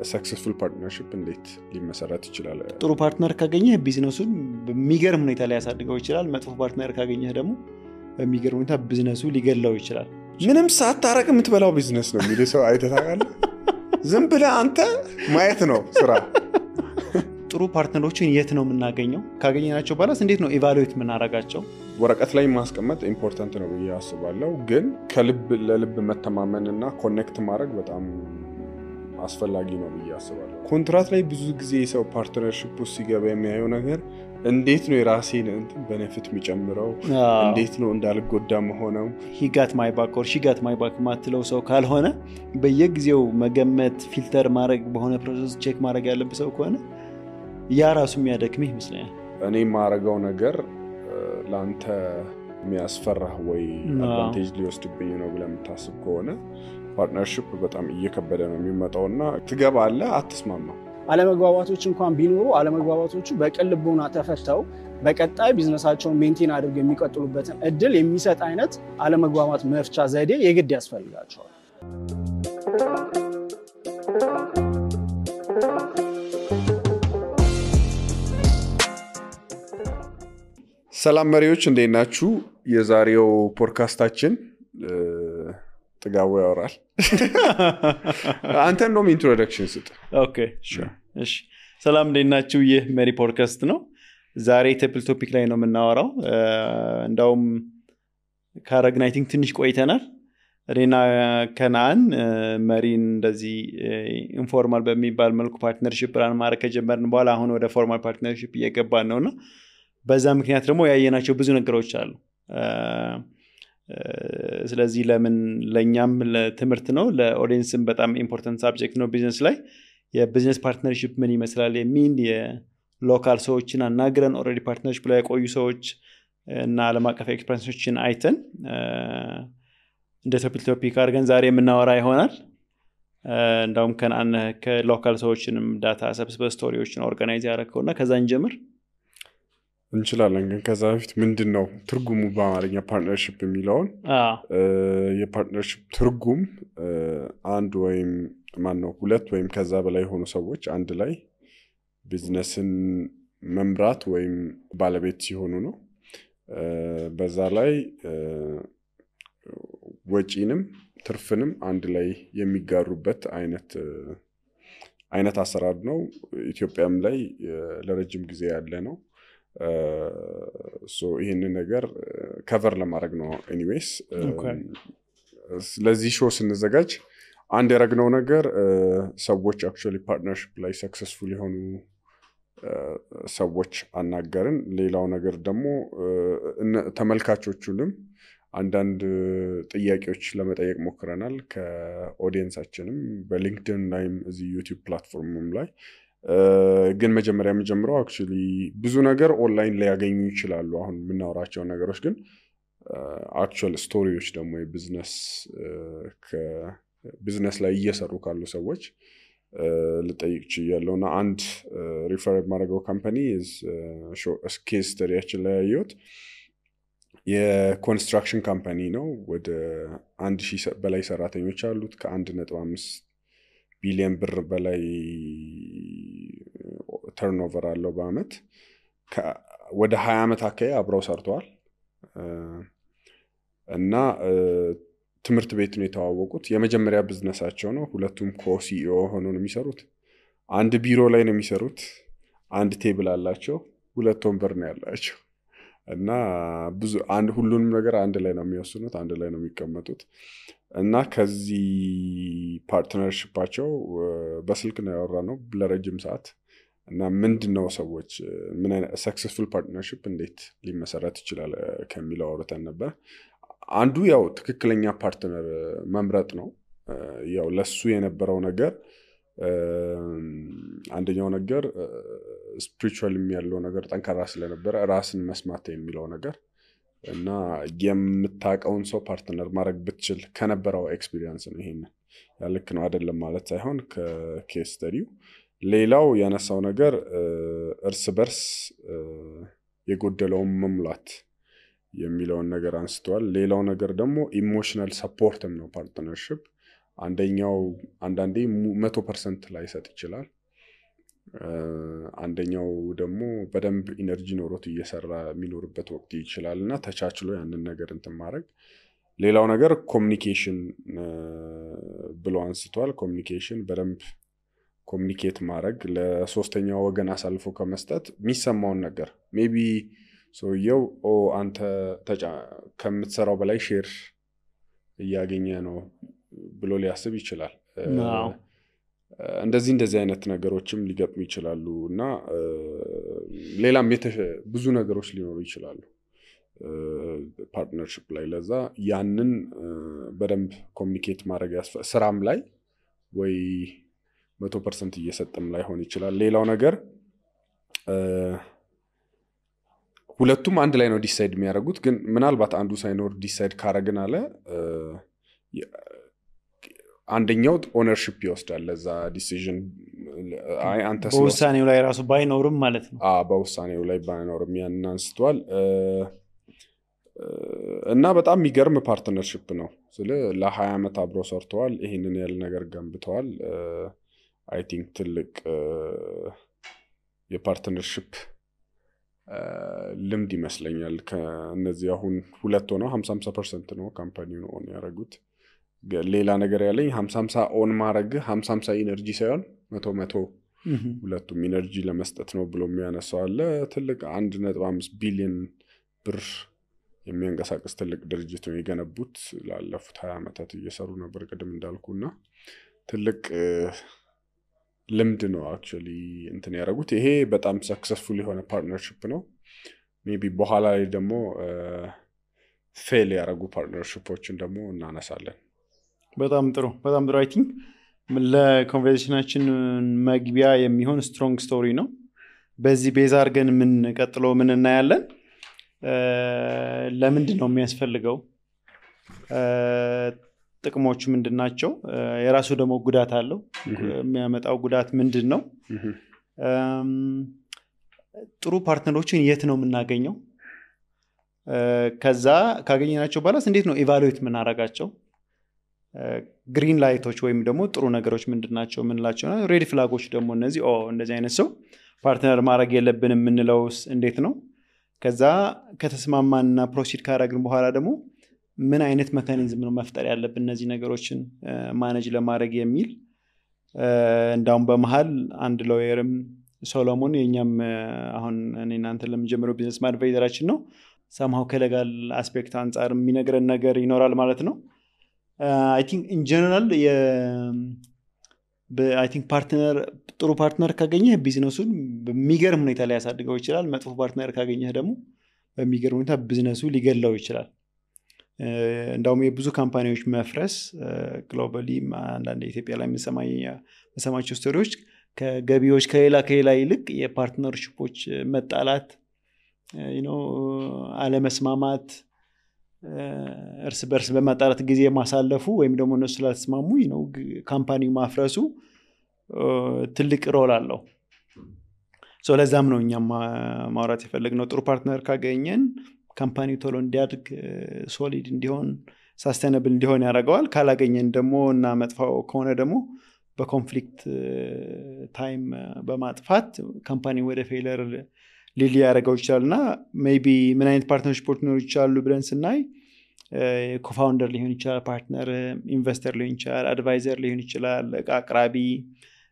successful partnership እንዴት ሊመሰረት ይችላል? ጥሩ ፓርትነር ካገኘህ ቢዝነሱን በሚገርም ሁኔታ ላይ ያሳድገው ይችላል። መጥፎ ፓርትነር ካገኘህ ደግሞ በሚገርም ሁኔታ ቢዝነሱ ሊገላው ይችላል። ምንም ሳታረቅ የምትበላው ቢዝነስ ነው የሚል ሰው አይተህ ታውቃለህ? ዝም ብለህ አንተ ማየት ነው ስራ። ጥሩ ፓርትነሮችን የት ነው የምናገኘው? ካገኘናቸው በኋላስ እንዴት ነው ኢቫሉዌት የምናደርጋቸው? ወረቀት ላይ ማስቀመጥ ኢምፖርታንት ነው ብዬ አስባለሁ። ግን ከልብ ለልብ መተማመንና ኮኔክት ማድረግ በጣም አስፈላጊ ነው ብዬ አስባለሁ። ኮንትራት ላይ ብዙ ጊዜ ሰው ፓርትነርሺፕ ውስጥ ሲገባ የሚያየው ነገር እንዴት ነው የራሴን ቤኔፊት የሚጨምረው፣ እንዴት ነው እንዳልጎዳ መሆነው። he got my back or she got my back ማትለው ሰው ካልሆነ በየጊዜው መገመት ፊልተር ማድረግ በሆነ ፕሮሰስ ቼክ ማድረግ ያለበት ሰው ከሆነ ያ ራሱ የሚያደክምህ ይመስለኛል። እኔ ማረጋው ነገር ላንተ የሚያስፈራህ ወይ አድቫንቴጅ ሊወስድብኝ ነው ብለህ የምታስብ ከሆነ ፓርትነርሺፕ በጣም እየከበደ ነው የሚመጣውና ትገባለህ፣ አትስማማም። አለመግባባቶች እንኳን ቢኖሩ አለመግባባቶቹ በቅን ልቦና ተፈተው በቀጣይ ቢዝነሳቸውን ሜንቴን አድርገው የሚቀጥሉበትን እድል የሚሰጥ አይነት አለመግባባት መፍቻ ዘዴ የግድ ያስፈልጋቸዋል። ሰላም መሪዎች እንዴት ናችሁ? የዛሬው ፖድካስታችን ጥጋቡ ያወራል። አንተ እንደውም ኢንትሮዳክሽን ስጥ። ኦኬ እሺ። ሰላም እንዴት ናችሁ? ይህ መሪ ፖድካስት ነው። ዛሬ ቴብል ቶፒክ ላይ ነው የምናወራው። እንደውም ካረግን አይ ቲንክ ትንሽ ቆይተናል። እኔና ከናን መሪን እንደዚህ ኢንፎርማል በሚባል መልኩ ፓርትነርሺፕ ራን ማድረግ ከጀመርን በኋላ አሁን ወደ ፎርማል ፓርትነርሺፕ እየገባን ነውና በዛ ምክንያት ደግሞ ያየናቸው ብዙ ነገሮች አሉ። ስለዚህ ለምን ለኛም ለትምህርት ነው፣ ለኦዲየንስም በጣም ኢምፖርታንት ሳብጀክት ነው። ቢዝነስ ላይ የቢዝነስ ፓርትነርሺፕ ምን ይመስላል የሚል የሎካል ሰዎችን አናግረን ኦልሬዲ ፓርትነርሺፕ ላይ የቆዩ ሰዎች እና ዓለም አቀፍ ኤክስፐሪንሶችን አይተን እንደ ቶፒክ አድርገን ዛሬ የምናወራ ይሆናል። እንደውም ከሎካል ሰዎችንም ዳታ ሰብስበ ስቶሪዎችን ኦርጋናይዝ ያደረግከውና ከዛ እንጀምር እንችላለን። ግን ከዛ በፊት ምንድነው ትርጉሙ በአማርኛ ፓርትነርሺፕ የሚለውን? የፓርትነርሺፕ ትርጉም አንድ ወይም ሁለት ወይም ከዛ በላይ የሆኑ ሰዎች አንድ ላይ ቢዝነስን መምራት ወይም ባለቤት ሲሆኑ ነው። በዛ ላይ ወጪንም ትርፍንም አንድ ላይ የሚጋሩበት አይነት አሰራር ነው። ኢትዮጵያም ላይ ለረጅም ጊዜ ያለ ነው። ይህንን ነገር ከቨር ለማድረግ ነው። ኤኒዌይስ ስለዚህ ሾው ስንዘጋጅ አንድ ያደረግነው ነገር ሰዎች አክቹዋሊ ፓርትነርሺፕ ላይ ሰክሰስፉል የሆኑ ሰዎች አናገርን። ሌላው ነገር ደግሞ ተመልካቾቹንም አንዳንድ ጥያቄዎች ለመጠየቅ ሞክረናል ከኦዲየንሳችንም በሊንክድን ላይም እዚህ ዩቲዩብ ፕላትፎርምም ላይ። ግን መጀመሪያ የምጀምረው አክቹዋሊ ብዙ ነገር ኦንላይን ላይ ያገኙ ይችላሉ አሁን የምናወራቸው ነገሮች። ግን አክቹዋል ስቶሪዎች ደግሞ ቢዝነስ ላይ እየሰሩ ካሉ ሰዎች ልጠይቅ ችያለሁና አንድ ሪፈር ማድረገው ካምፓኒ ኬስ ስተዲያችን ላይ ያየሁት የኮንስትራክሽን ካምፓኒ ነው። ወደ 1000 በላይ ሰራተኞች አሉት። ከ1.5 ቢሊዮን ብር በላይ ተርኖቨር አለው በአመት። ወደ 20 ዓመት አካባቢ አብረው ሰርተዋል እና ትምህርት ቤት ነው የተዋወቁት። የመጀመሪያ ቢዝነሳቸው ነው። ሁለቱም ኮሲኢኦ ሆነው ነው የሚሰሩት። አንድ ቢሮ ላይ ነው የሚሰሩት። አንድ ቴብል አላቸው። 2 ወንበር ነው ያላቸው እና ሁሉንም ነገር አንድ ላይ ነው የሚወስኑት፣ አንድ ላይ ነው የሚቀመጡት። እና ከዚህ ፓርትነርሺፓቸው በስልክ ነው ያወራነው ለረጅም ሰዓት። እና ምንድነው ሰዎች ምን አይነት ሰክሰስፉል ፓርትነርሺፕ እንዴት ሊመሰረት ይችላል ከሚለው አውርተን ነበር። አንዱ ያው ትክክለኛ ፓርትነር መምረጥ ነው። ያው ለሱ የነበረው ነገር አንደኛው ነገር ስፒሪቹዋል ያለው ነገር ጠንካራ ስለነበረ ራስን መስማት የሚለው ነገር እና የምታውቀውን ሰው ፓርትነር ማድረግ ብትችል ከነበረው ኤክስፒሪየንስ ነው። ይሄንን ያልክ ነው አይደለም ማለት ሳይሆን ከኬስ ስተዲው። ሌላው ያነሳው ነገር እርስ በርስ የጎደለውን መሙላት የሚለውን ነገር አንስተዋል። ሌላው ነገር ደግሞ ኢሞሽናል ሰፖርትም ነው ፓርትነርሺፕ። አንደኛው አንዳንዴ 100% ላይሰጥ ይችላል። አንደኛው ደግሞ በደንብ ኢነርጂ ኖሮት እየሰራ የሚኖርበት ወቅት ይችላል እና ተቻችሎ ያንን ነገር እንትን ማድረግ። ሌላው ነገር ኮሚኒኬሽን ብሎ አንስቷል። ኮሚኒኬሽን በደንብ ኮሚኒኬት ማድረግ፣ ለሶስተኛው ወገን አሳልፎ ከመስጠት የሚሰማውን ነገር ሜቢ ሰውየው አንተ ከምትሰራው በላይ ሼር እያገኘ ነው ብሎ ሊያስብ ይችላል። እንደዚህ አይነት ነገሮችም ሊገጥሙ ይችላሉ እና ሌላም ብዙ ነገሮች ሊኖሩ ይችላሉ ፓርትነርሺፕ ላይ። ለዛ ያንን በደንብ ኮሚኒኬት ማድረግ ስራም ላይ ወይ 100% እየሰጠም ላይሆን ይችላል። ሌላው ነገር ሁለቱም አንድ ላይ ነው ዲሳይድ የሚያደርጉት፣ ግን ምናልባት አንዱ ሳይኖር ዲሳይድ ካረግን አለ አንደኛው ኦነርሺፕ ይወስዳል ለዛ ዲሲዥን። አንተ በውሳኔው ላይ ራሱ ባይኖርም ማለት ነው። በውሳኔው ላይ ባይኖርም ያን አንስቷል እና በጣም የሚገርም ፓርትነርሺፕ ነው። ለ20 ዓመት አብሮ ሰርተዋል። ይሄንን ያለ ነገር ገንብተዋል። አይ ቲንክ ትልቅ የፓርትነርሺፕ ልምድ ይመስለኛል። ከነዚህ አሁን ሁለት ሆነው 50% ነው ካምፓኒውን ኦን ያደረጉት። ሌላ ነገር ያለኝ 50 ኦን ማድረግ 50 ኢነርጂ ሳይሆን 100 ሁለቱም ኢነርጂ ለመስጠት ነው ብሎ የሚያነሳው አለ። ትልቅ 1.5 ቢሊዮን ብር የሚያንቀሳቅስ ትልቅ ድርጅት ነው የገነቡት። ላለፉት 20 ዓመታት እየሰሩ ነበር ቅድም እንዳልኩና ትልቅ ልምድ ነው አክቹሊ እንትን ያደረጉት። ይሄ በጣም ሰክሰስፉል የሆነ ፓርትነርሺፕ ነው። ሜቢ በኋላ ላይ ደግሞ ፌል ያደረጉ ፓርትነርሺፖችን ደግሞ እናነሳለን። በጣም ጥሩ አይ ቲንክ ለኮንቨርሴሽናችን መግቢያ የሚሆን ስትሮንግ ስቶሪ ነው። በዚህ ቤዛ አድርገን ምን ቀጥሎ ምን እናያለን? ለምንድን ነው የሚያስፈልገው? ጥቅሞቹ ምንድናቸው? የራሱ ደግሞ ጉዳት አለው። የሚያመጣው ጉዳት ምንድን ነው? ጥሩ ፓርትነሮችን የት ነው የምናገኘው? ከዛ ካገኘናቸው በኋላስ እንዴት ነው ኢቫሉዌት የምናደርጋቸው? ግሪን ላይቶች ወይም ደግሞ ጥሩ ነገሮች ምንድናቸው የምንላቸው ነው። ሬድ ፍላጎች ደግሞ እንደዚህ አይነት ሰው ፓርትነር ማድረግ የለብንም የምንለውስ እንዴት ነው? ከዛ ከተስማማንና ፕሮሲድ ካደረግን በኋላ ደግሞ ምን አይነት ሜካኒዝም ነው መፍጠር ያለብን እነዚህ ነገሮችን ማኔጅ ለማድረግ የሚል። እንዳውም በመሃል አንድ ሎየርም ሶሎሞን የኛም አሁን እኔ እናንተ ለምንጀምረው ቢዝነስ አድቫይዘራችን ነው፣ ሰምሃው ከሌጋል አስፔክት አንጻር የሚነግረን ነገር ይኖራል ማለት ነው። አይ ቲንክ ኢን ጀነራል አይ ቲንክ ጥሩ ፓርትነር ካገኘህ ቢዝነሱን በሚገርም ሁኔታ ሊያሳድገው ይችላል። መጥፎ ፓርትነር ካገኘህ ደግሞ በሚገርም ሁኔታ ቢዝነሱ ሊገላው ይችላል። እንዳውም የብዙ ካምፓኒዎች መፍረስ ግሎባሊ አንዳንድ ኢትዮጵያ ላይ የምሰማቸው ስቶሪዎች ከገቢዎች ከሌላ ይልቅ የፓርትነርሺፖች መጣላት፣ አለመስማማት፣ እርስ በርስ በማጣላት ጊዜ ማሳለፉ ወይም ደግሞ እነሱ ስላልተስማሙ ካምፓኒው ማፍረሱ ትልቅ ሮል አለው። ለዛም ነው እኛም ማውራት የፈለግነው። ጥሩ ፓርትነር ካገኘን ካምፓኒው ቶሎ እንዲያድግ፣ ሶሊድ እንዲሆን፣ ሳስቴናብል እንዲሆን ያደርገዋል። ካላገኘን ደግሞ እና መጥፋው ከሆነ ደግሞ በኮንፍሊክት ታይም በማጥፋት ካምፓኒ ወደ ፌለር ሊያደርገው ይችላል። እና ሜይቢ ምን አይነት ፓርትነርሺፖች ሊኖሩ ይችላሉ ብለን ስናይ ኮፋውንደር ሊሆን ይችላል፣ ፓርትነር ኢንቨስተር ሊሆን ይችላል፣ አድቫይዘር ሊሆን ይችላል፣ እቃ አቅራቢ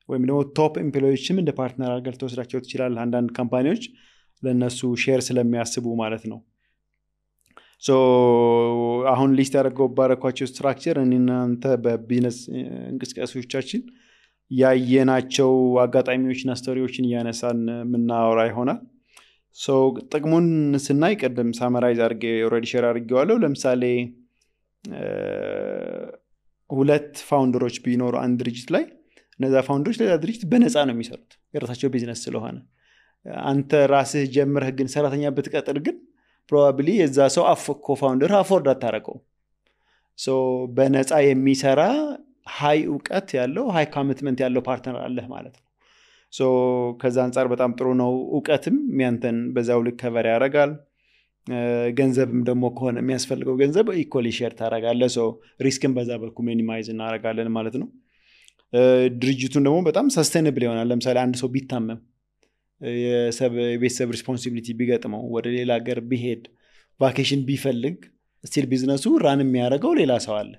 ወይም ደግሞ ቶፕ ኤምፕሎዮችም እንደ ፓርትነር አድርገህ ተወስዳቸው ትችላል። አንዳንድ ካምፓኒዎች ለእነሱ ሼር ስለሚያስቡ ማለት ነው። አሁን ሊስት ባረኳቸው ስትራክቸር እናንተ በቢዝነስ እንቅስቃሴዎቻችን ያየናቸው አጋጣሚዎችና ስቶሪዎችን እያነሳን የምናወራ ይሆናል። ጥቅሙን ስናይ ቀደም ሳመራይዝ አድርጌ ኦልሬዲ ሼር አድርጌዋለሁ። ለምሳሌ ሁለት ፋውንደሮች ቢኖሩ አንድ ድርጅት ላይ እነዛ ፋውንደሮች ለዛ ድርጅት በነፃ ነው የሚሰሩት የራሳቸው ቢዝነስ ስለሆነ። አንተ ራስህ ጀምረህ ግን ሰራተኛ ብትቀጥር ግን ፕሮባብሊ የዛ ሰው ኮፋውንደር አፎርድ አታረቀው። በነፃ የሚሰራ ሃይ እውቀት ያለው ሃይ ኮሚትመንት ያለው ፓርትነር አለህ ማለት ነው። ከዛ አንጻር በጣም ጥሩ ነው። እውቀትም ያንተን በዛው ልክ ከቨር ያደርጋል። ገንዘብም ደግሞ ከሆነ የሚያስፈልገው ገንዘብ ኢኳሊ ሼር ታደርጋለህ ሶ ሪስክን በዛ በኩል ሚኒማይዝ እናደርጋለን ማለት ነው ድርጅቱን ደግሞ በጣም ሰስቴነብል ይሆናል ለምሳሌ አንድ ሰው ቢታመም የቤተሰብ ሪስፖንሲቢሊቲ ቢገጥመው ወደ ሌላ ሀገር ቢሄድ ቫኬሽን ቢፈልግ ስቲል ቢዝነሱ ራን የሚያደርገው ሌላ ሰው አለ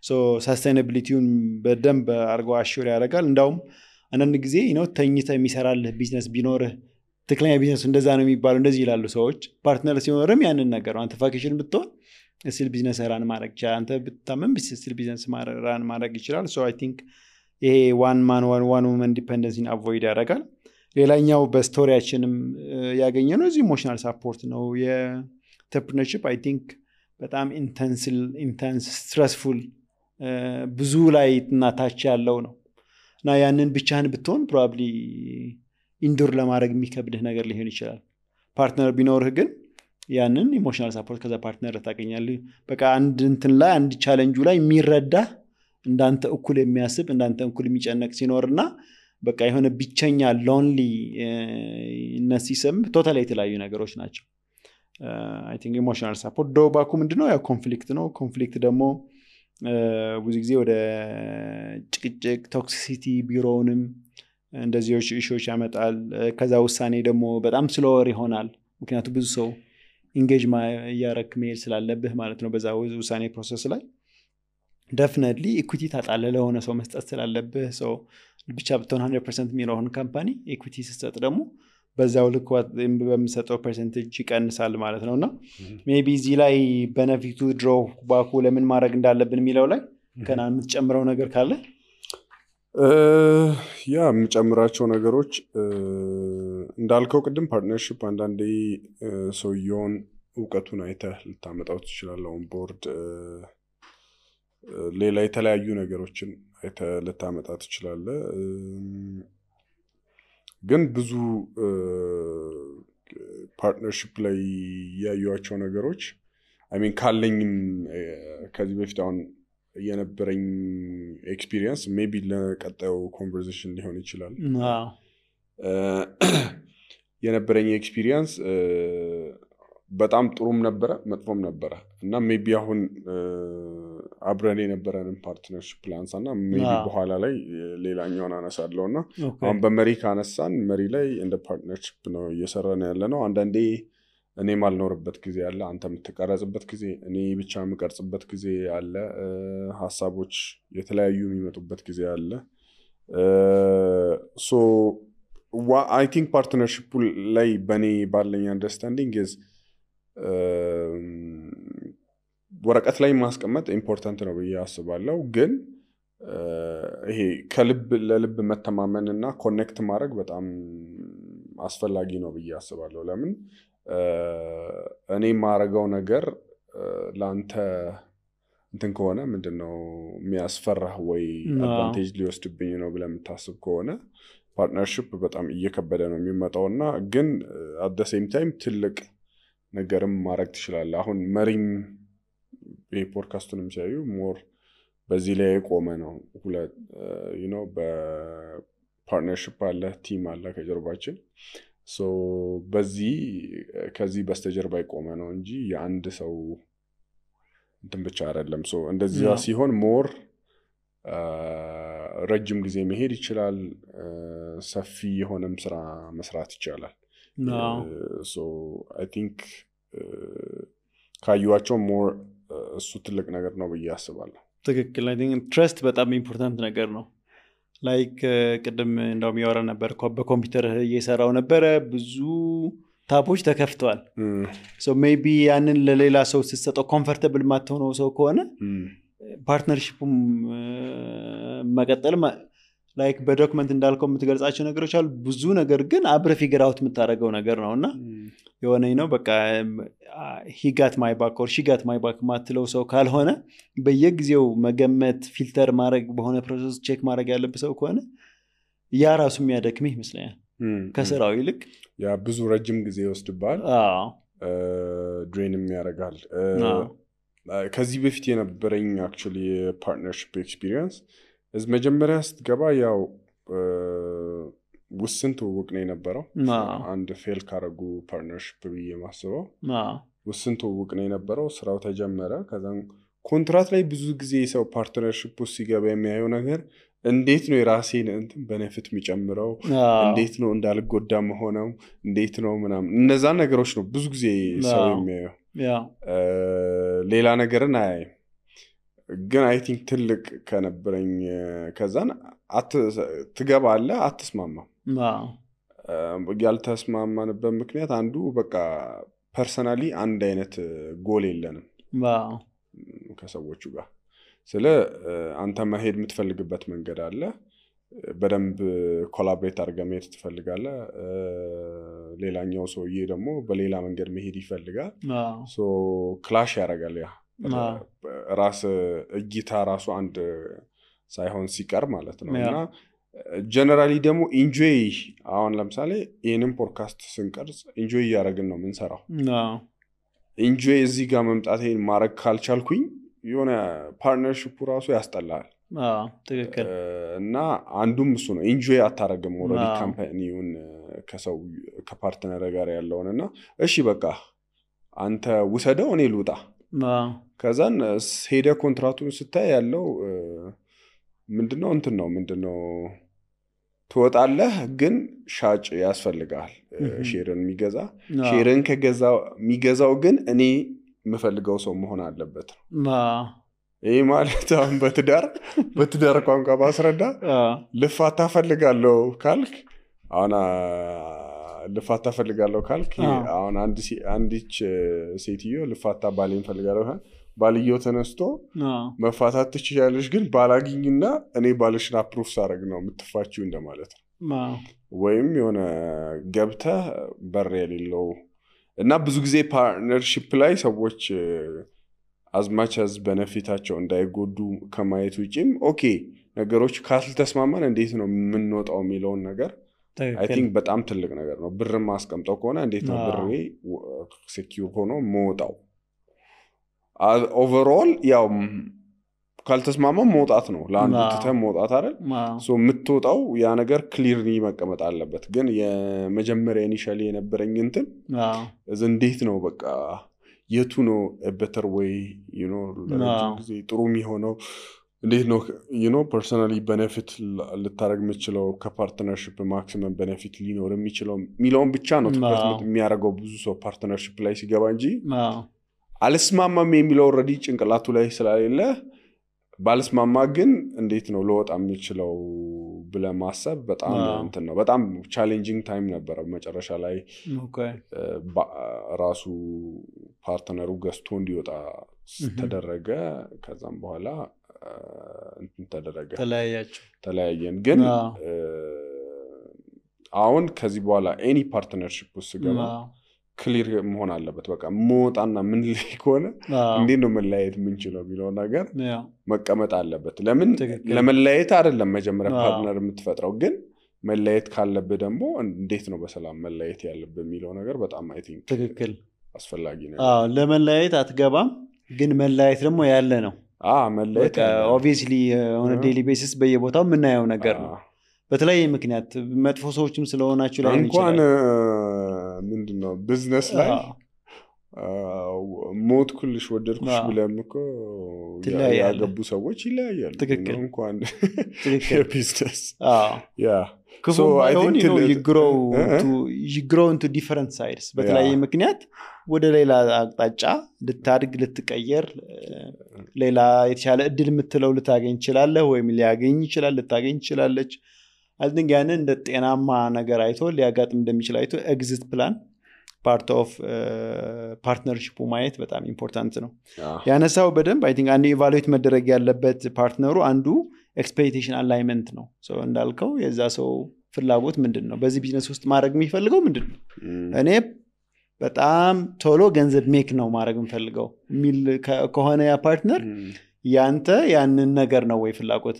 ሶ ሰስቴናቢሊቲውን በደንብ አድርገው አሹር ያደርጋል እንዳውም አንዳንድ ጊዜ ተኝተህ የሚሰራልህ ቢዝነስ ቢኖርህ ትክክለኛ ቢዝነሱ እንደዛ ነው የሚባለው እንደዚህ ይላሉ ሰዎች ፓርትነር ሲኖርም ያንን ነገር አንተ ቫኬሽን ብትሆን ስቲል ቢዝነስ ራን ማድረግ ይችላል አንተ ብትታመም ስቲል ቢዝነስ ራን ማድረግ ይችላል ሶ አይ ቲንክ ይሄ ዋን ማን ዋን ውመን ዲፔንደንሲን አቮይድ ያደርጋል ሌላኛው በስቶሪያችንም ያገኘነው እዚህ ኢሞሽናል ሳፖርት ነው የኢንተርፕረነርሺፕ አይ ቲንክ በጣም ኢንተንስ ስትረስፉል ብዙ ላይ እናታች ያለው ነው እና ያንን ብቻህን ብትሆን ፕሮባብሊ ኢንዱር ለማድረግ የሚከብድህ ነገር ሊሆን ይችላል ፓርትነር ቢኖርህ ግን ያንን ኢሞሽናል ሳፖርት ከዛ ፓርትነር ታገኛለህ በቃ አንድ እንትን ላይ አንድ ቻሌንጁ ላይ የሚረዳ እንዳንተ እኩል የሚያስብ እንዳንተ እኩል የሚጨነቅ ሲኖርና በቃ የሆነ ብቸኛ ሎንሊ ነሲሰም ቶታሊ የተለያዩ ነገሮች ናቸው አይ ቲንክ ኢሞሽናል ሳፖርት ዶባኩ ምንድነው ያው ኮንፍሊክት ነው ኮንፍሊክት ደግሞ ብዙ ጊዜ ወደ ጭቅጭቅ ቶክሲሲቲ ቢሮውንም እንደዚህ ኢሹዎች ያመጣል ከዛ ውሳኔ ደግሞ በጣም ስሎወር ይሆናል ምክንያቱም ብዙ ሰው ኢንጌጅ ያረክ መሄድ ስላለብህ ማለት ነው በዛ ውሳኔ ፕሮሰስ ላይ ዴፊኒትሊ ኢኩዊቲ ታጣለህ ለሆነ ሰው መስጠት ስላለብህ ሰው ብቻ ብትሆን 100% የሚሆን ካምፓኒ ኢኩዊቲ ስትሰጥ ደግሞ በዛው ልክ በሚሰጠው ፐርሰንቴጅ ይቀንሳል ማለት ነውና ሜቢ እዚህ ላይ ቤኔፊቱ ድሮ ባኩ ለምን ማድረግ እንዳለብን የሚለው ላይ ከና የምትጨምረው ነገር ካለ ያ የምጨምራቸው ነገሮች እንዳልከው ቅድም ፓርትነርሺፕ አንዳንዴ ሰውየውን እውቀቱን አይተህ ልታመጣው ትችላለህ ኦን ቦርድ ሌላ የተለያዩ ነገሮችን አይተህ ልታመጣ ትችላለህ ግን ብዙ ፓርትነርሺፕ ላይ ያዩዋቸው ነገሮች አይ ሚን ካለኝም ከዚህ በፊት አሁን የነበረኝ ኤክስፒሪየንስ ሜቢ ለቀጣዩ ኮንቨርሴሽን ሊሆን ይችላል የነበረኝ ኤክስፒሪየንስ በጣም ጥሩም ነበረ መጥፎም ነበረ እና ሜቢ አሁን አብረን የነበረንን ፓርትነርሺፕ ፕላንስ እና ሜቢ በኋላ ላይ ሌላኛውን አነሳለሁና አሁን በመሪ ካነሳን መሪ ላይ እንደ ፓርትነርሺፕ ነው እየሰራን ያለ ነው አንዳንዴ እኔ ማልኖርበት ጊዜ አለ አንተ የምትቀረጽበት ጊዜ እኔ ብቻ የምቀርጽበት ጊዜ አለ ሐሳቦች የተለያዩ የሚመጡበት ጊዜ አለ ሶ I think partnership ላይ በኔ ባለኝ አንደርስታንዲንግ is ወረቀት ላይ ማስቀመጥ ኢምፖርታንት ነው ብዬ አስባለሁ ግን ይሄ ከልብ ለልብ መተማመንና ኮኔክት ማድረግ በጣም አስፈላጊ ነው ብዬ አስባለሁ ለምን እኔ ማረጋው ነገር ላንተ እንትን ከሆነ ምንድነው የሚያስፈራህ ወይ አድቫንቴጅ ሊወስድብኝ ነው ብለህ የምታስብ ከሆነ ፓርትነርሺፕ በጣም እየከበደ ነው የሚመጣውና ግን at the same time ትልቅ ነገርም ማድረግ ትችላለህ አሁን መሪም በፖድካስቱንም ሲያዩ ሞር በዚህ ላይ ቆመ ነው ሁለት በፓርትነርሺፕ አለ ቲም አለ ከጀርባችን ሶ በዚህ ከዚህ በስተጀርባ ቆመ ነው እንጂ የአንድ ሰው እንትን ብቻ አይደለም ሶ እንደዚህ ሲሆን ሞር ረጅም ጊዜ መሄድ ይችላል ሰፊ የሆነም ስራ መስራት ይችላል ሶ I think ካዩዋቸው ሞር እሱ ትልቅ ነገር ነው ብዬ አስባለሁ ትክክል I think trust በጣም ኢምፖርታንት ነገር ነው ላይክ ቅድም እንደውም ያወራ ነበር በኮምፒውተር እየሰራው ነበር ብዙ ታቦች ተከፍተዋል ሶ ሜቢ ያንን ለሌላ ሰው ሲሰጠው ኮምፎርታብል ማትሆነው ሰው ከሆነ ፓርትነርሺፑም መቀጠል ላይክ በዶክመንት እንዳልከው የምትገልጻቸው ነገሮች አሉ ብዙ ነገር ግን አብረ ፊገር አውት የምታደርገው ነገር ነውና የሆነኝ ነው በቃ he got my back or she got my back ማትለው ሰው ካልሆነ በየጊዜው መገመት ፊልተር ማድረግ በሆነ ፕሮሰስ ቼክ ማድረግ ያለበት ሰው ከሆነ ያ ራሱ የሚያደክምህ ይመስላል ከስራው ይልቅ ያ ብዙ ረጅም ጊዜ ይወስድባል ድሬንም ያደርጋል ከዚህ በፊት የነበረኝ actually partnership experience is መጀመሪያ ስትገባ ያው ውስን ትውውቅ ነው የነበረው አንድ ፌል ካረጉ ፓርትነርሺፕ ብዬ ማስበው ውስን ትውውቅ ነው የነበረው። ስራው ተጀመረ። ከዛ ኮንትራት ላይ ብዙ ጊዜ ሰው ፓርትነርሺፕ ውስጥ ሲገባ የሚያየው ነገር እንዴት ነው የራሴን እንትን በነፊት የሚጨምረው፣ እንዴት ነው እንዳልጎዳ መሆነው፣ እንዴት ነው ምናምን እነዛ ነገሮች ነው ብዙ ጊዜ ሰው የሚያየው። ሌላ ነገርን አያይም። ግን አይ ቲንክ ትልቅ ከነበረኝ ከዛን ትገባለህ አትስማማም። ያልተስማማንበት ምክንያት አንዱ በቃ ፐርሰናሊ አንድ አይነት ጎል የለንም ከሰዎቹ ጋር። ስለ አንተ መሄድ የምትፈልግበት መንገድ አለ፣ በደንብ ኮላቦሬት አድርገህ መሄድ ትፈልጋለህ። ሌላኛው ሰውዬ ደግሞ በሌላ መንገድ መሄድ ይፈልጋል። ሶ ክላሽ ያደርጋል። ያ ራስ እይታ ራሱ አንድ ሳይሆን ሲቀር ማለት ነው። እና ጀነራሊ ደግሞ ኢንጆይ አሁን ለምሳሌ ይህንን ፖድካስት ስንቀርጽ ኢንጆይ እያደረግን ነው የምንሰራው። ኢንጆይ እዚህ ጋር መምጣት ይሄን ማድረግ ካልቻልኩኝ የሆነ ፓርትነርሺፑ ራሱ ያስጠላል። ትክክል። እና አንዱም እሱ ነው። ኢንጆይ አታረግም ኦልሬዲ ካምፓኒውን ከሰው ከፓርትነር ጋር ያለውን እና እሺ በቃ አንተ ውሰደው እኔ ልውጣ። ከዛን ሄደ ኮንትራቱን ስታይ ያለው ምንድነው እንትን ነው ምንድነው ትወጣለህ፣ ግን ሻጭ ያስፈልጋል ሼርን የሚገዛ። ሼርን የሚገዛው ግን እኔ የምፈልገው ሰው መሆን አለበት ነው። ይሄ ማለት አሁን በትዳር ቋንቋ ባስረዳ ልፋታ ፈልጋለሁ ካልክ አሁን ልፋታ ፈልጋለሁ ካልክ አሁን አንዲች ሴትዮ ልፋታ ባሌን ፈልጋለሁ ባልየው ተነስቶ መፋታት ትችያለሽ፣ ግን ባላግኝና እኔ ባልሽን አፕሩቭ ሳደርግ ነው የምትፋቺው እንደማለት ነው። ወይም የሆነ ገብተህ በር የሌለው እና ብዙ ጊዜ ፓርትነርሺፕ ላይ ሰዎች አዝማች አዝ በነፊታቸው እንዳይጎዱ ከማየት ውጪም ኦኬ ነገሮች ካልተስማማን እንዴት ነው የምንወጣው የሚለውን ነገር አይ ቲንክ በጣም ትልቅ ነገር ነው። ብርም ማስቀምጠው ከሆነ እንዴት ነው ብሬ ሴኪዩር ሆኖ መውጣው። ኦቨርኦል ያው ካልተስማማም መውጣት ነው፣ ለአንዱ ትተህ መውጣት አይደል? ሶ የምትወጣው ያ ነገር ክሊርሊ መቀመጥ አለበት። ግን የመጀመሪያ ኢኒሻሊ የነበረኝ እንትን እንዴት ነው በቃ የቱ ነው better way ለረጅም ጊዜ ጥሩ የሚሆነው እንዴት ነው ፐርሰናሊ ቤኔፊት ልታረግ የምችለው ከፓርትነርሺፕ ማክሲመም ቤኔፊት ሊኖር የሚችለው ሚሊዮን ብቻ ነው ትኩረት የሚያደርገው ብዙ ሰው ፓርትነርሺፕ ላይ ሲገባ እንጂ አልስማማም የሚለው ኦልሬዲ ጭንቅላቱ ላይ ስላሌለ ባልስማማ ግን እንዴት ነው ለወጣ የሚችለው ብለህ ማሰብ በጣም እንትን ነው። በጣም ቻሌንጂንግ ታይም ነበረ። መጨረሻ ላይ ራሱ ፓርትነሩ ገዝቶ እንዲወጣ ተደረገ። ከዛም በኋላ እንትን ተደረገ፣ ተለያየን። ግን አሁን ከዚህ በኋላ ኤኒ ፓርትነርሺፕ ውስጥ ገባ ክሊር መሆን አለበት። በቃ መውጣና ምን ላይ ከሆነ እንዴት ነው መለያየት የምንችለው የሚለው ነገር መቀመጥ አለበት። ለምን ለመለያየት አይደለም መጀመሪያ ፓርትነር የምትፈጥረው፣ ግን መለያየት ካለብህ ደግሞ እንዴት ነው በሰላም መለያየት ያለብህ የሚለው ነገር በጣም አይ ቲንክ ትክክል አስፈላጊ ነው። ለመለያየት አትገባም፣ ግን መለያየት ደግሞ ያለ ነው። መለያየት ኦብቪየስሊ ኦን ዴይሊ ቤሲስ በየቦታው የምናየው ነገር ነው። በተለያየ ምክንያት መጥፎ ሰዎችም ስለሆናችሁ ላይ እንኳን ምንድነው ቢዝነስ ላይ ሞት ኩልሽ ወደድኩሽ ብለም እኮ ያገቡ ሰዎች ይለያያሉ። እንኳን ቢዝነስ ክፉ ባይሆን you grow into different sides። በተለያየ ምክንያት ወደ ሌላ አቅጣጫ ልታድግ ልትቀየር ሌላ የተሻለ እድል የምትለው ልታገኝ ይችላለህ፣ ወይም ሊያገኝ ይችላል ልታገኝ ይችላለች። I think ያንን እንደ ጤናማ ነገር አይቶ ሊያጋጥም እንደሚችል አይቶ ኤግዚት ፕላን ፓርት ኦፍ ፓርትነርሺፑ ማየት በጣም ኢምፖርታንት ነው። ያነሳው በደንብ አይ ቲንክ አንድ ኢቫሉዌት መደረግ ያለበት ፓርትነሩ አንዱ ኤክስፔክቴሽን አላይመንት ነው። ሶ እንዳልከው የዛ ሰው ፍላጎት ምንድነው፣ በዚህ ቢዝነስ ውስጥ ማድረግ የሚፈልገው ምንድነው፣ እኔ በጣም ቶሎ ገንዘብ ሜክ ነው ማድረግ የምፈልገው የሚል ከሆነ ያ ፓርትነር ያንተ ያንን ነገር ነው ወይ ፍላጎት፣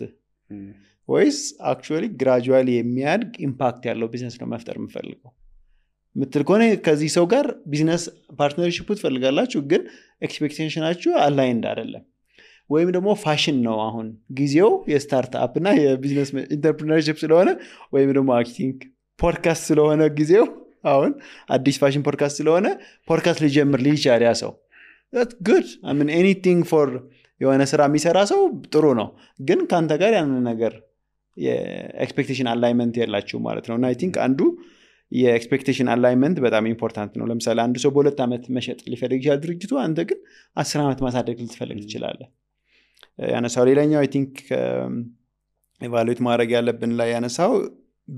ወይስ አክቹዋሊ ግራጁዋሊ የሚያድግ ኢምፓክት ያለው ቢዝነስ ነው መፍጠር የምፈልገው ምትል ከሆነ ከዚህ ሰው ጋር ቢዝነስ ፓርትነርሺፕ ትፈልጋላችሁ፣ ግን ኤክስፔክቴሽናችሁ አላይንድ አይደለም። ወይም ደግሞ ፋሽን ነው፣ አሁን ጊዜው የስታርትአፕ እና የቢዝነስ ኢንተርፕሪነርሺፕ ስለሆነ፣ ወይም ደግሞ አይ ቲንክ ፖድካስት ስለሆነ ጊዜው አሁን አዲስ ፋሽን ፖድካስት ስለሆነ ፖድካስት ሊጀምር ሊቻል ያ ሰው that's good I mean anything for የሆነ ስራ የሚሰራ ሰው ጥሩ ነው ግን ካንተ ጋር ያንን ነገር የኤክስፔክቴሽን አላይመንት ያላችሁ ማለት ነው እና አይ ቲንክ አንዱ የኤክስፔክቴሽን አላይመንት በጣም ኢምፖርታንት ነው ለምሳሌ አንድ ሰው በ2 ዓመት መሸጥ ሊፈልግ ይችላል ድርጅቱ አንተ ግን 10 ዓመት ማሳደግ ልትፈልግ ትችላለህ ያነሳው ሌላኛው አይ ቲንክ ኢቫሉዌት ማድረግ ያለብን ላይ ያነሳው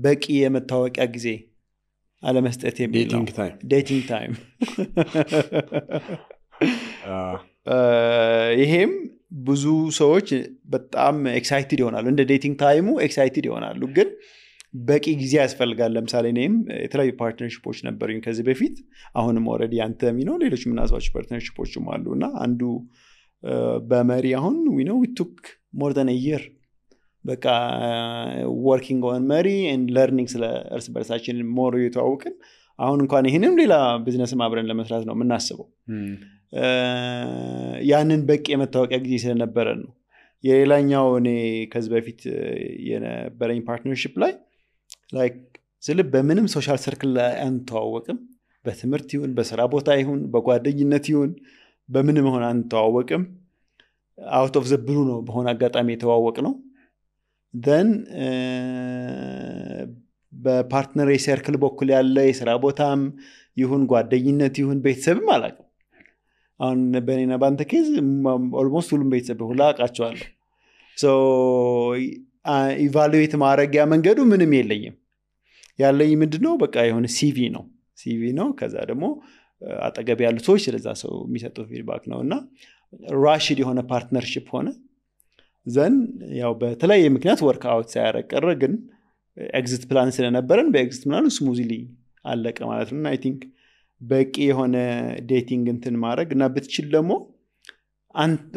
በቂ የመታወቂያ ጊዜ አለመስጠት የሚል ነው ዴቲንግ ታይም ይሄም ብዙ ሰዎች በጣም ኤክሳይትድ ይሆናሉ እንደ ዴቲንግ ታይሙ ኤክሳይትድ ይሆናሉ ግን በቂ ጊዜ ያስፈልጋል ለምሳሌ እኔም የተለያዩ ፓርትነርሺፖች ነበሩኝ ከዚህ በፊት አሁንም ኦልሬዲ አንተ ነው ሌሎች ምናልባት ፓርትነርሺፖችም አሉና አንዱ በመሪ አሁን we know we took more than a year በቃ working on መሪ and learning ስለ እርስ በርሳችን ሞር የተዋወቅን አሁን እንኳን ይሄንም ሌላ ቢዝነስም አብረን ለመስራት ነው የምናስበው ያንን በቂ የመታወቂያ ጊዜ ስለነበረ ነው የሌላኛው እኔ ከዚህ በፊት የነበረኝ ፓርትነርሺፕ ላይ ላይክ ስለ በምንም ሶሻል ሰርክል ላይ አንተዋወቅም በትምህርት ይሁን በስራ ቦታ ይሁን በጓደኝነት ይሁን በምንም ሆነ አንተዋወቅም አውት ኦፍ ዘ ብሉ ነው በሆነ አጋጣሚ የተዋወቅ ነው then በፓርትነር ሰርክል በኩል ያለ የስራ ቦታም ይሁን ጓደኝነት ይሁን ቤተሰብም አላውቅም አሁን በእኔና ባንተ ኬዝ ኦልሞስት ሁሉም ቤተሰብ ሁላ አውቃቸዋለሁ ሶ ኢቫሉዌት ማድረጊያ መንገዱ ምንም የለኝም ያለኝ ምንድነው በቃ የሆነ ሲቪ ነው ከዛ ደግሞ አጠገብ ያሉ ሰዎች ስለዛ ሰው የሚሰጡት ፊድባክ ነውና ራሽድ የሆነ ፓርትነርሺፕ ሆነ ዘን ያው በተለያየ ምክንያት ወርክ አውት ሳያረቀረ ግን ኤግዚት ፕላን ስለነበረን በኤግዚት ፕላኑ ስሙዝሊ አለቀ ማለት ነው አይ ቲንክ በቂ የሆነ ዴቲንግ እንትን ማድረግ እና ብትችል ደግሞ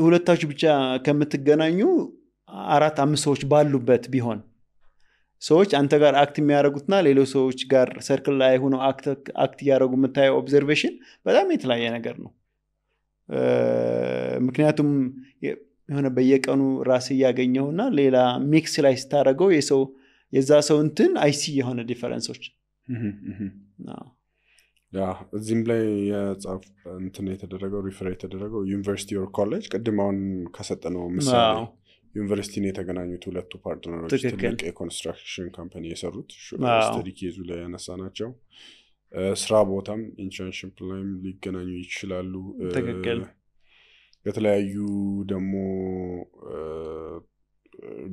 ሁለታችሁ ብቻ ከምትገናኙ 4-5 ሰዎች ባሉበት ቢሆን ሰዎች አንተ ጋር አክት የሚያደርጉትና ሌሎች ሰዎች ጋር ሰርክል ላይ ሆነው አክት ያደርጉ የምታየው ኦብዘርቬሽን በጣም የተለያየ ነገር ነው ምክንያቱም የሆነ በየቀኑ ራስ ያገኘውና ሌላ ሚክስ ላይ ስታደርገው የዛ ሰው እንትን አይሲ የሆነ ዲፈረንሶች ያ እዚህም ላይ የጻፍ እንትን የተደረገው ሪፈር የተደረገው ዩኒቨርሲቲ ኦር ኮሌጅ ቅድም አሁን ከሰጠነው ምሳሌ ዩኒቨርሲቲ ነው የተገናኙት ሁለቱ ፓርትነሮች ትልቅ የኮንስትራክሽን ካምፓኒ የሰሩት ስተዲ ኬዙ ላይ ያነሳናቸው ስራ ቦታም ኢንተርንሺፕ ላይም ሊገናኙ ይችላሉ የተለያዩ ደግሞ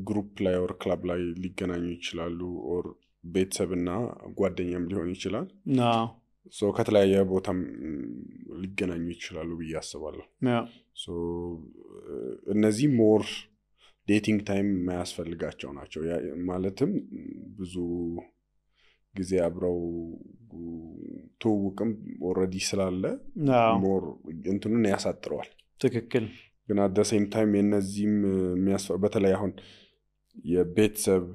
ግሩፕ ላይ ኦር ክለብ ላይ ሊገናኙ ይችላሉ ኦር ቤተሰብና ጓደኛም ሊሆን ይችላል ሶ ከተለያየ ቦታም ሊገናኙ ይችላሉ ብዬ አስባለሁ ሶ እነዚህ ሞር ዴቲንግ ታይም ማያስፈልጋቸው ናቸው ማለትም ብዙ ጊዜ አብረው ተውውቅም ኦሬዲ ስላለ ሞር እንትኑን ያሳጥረዋል ትክክል ግን at the same time የነዚህም በተለይ አሁን የቤተሰብ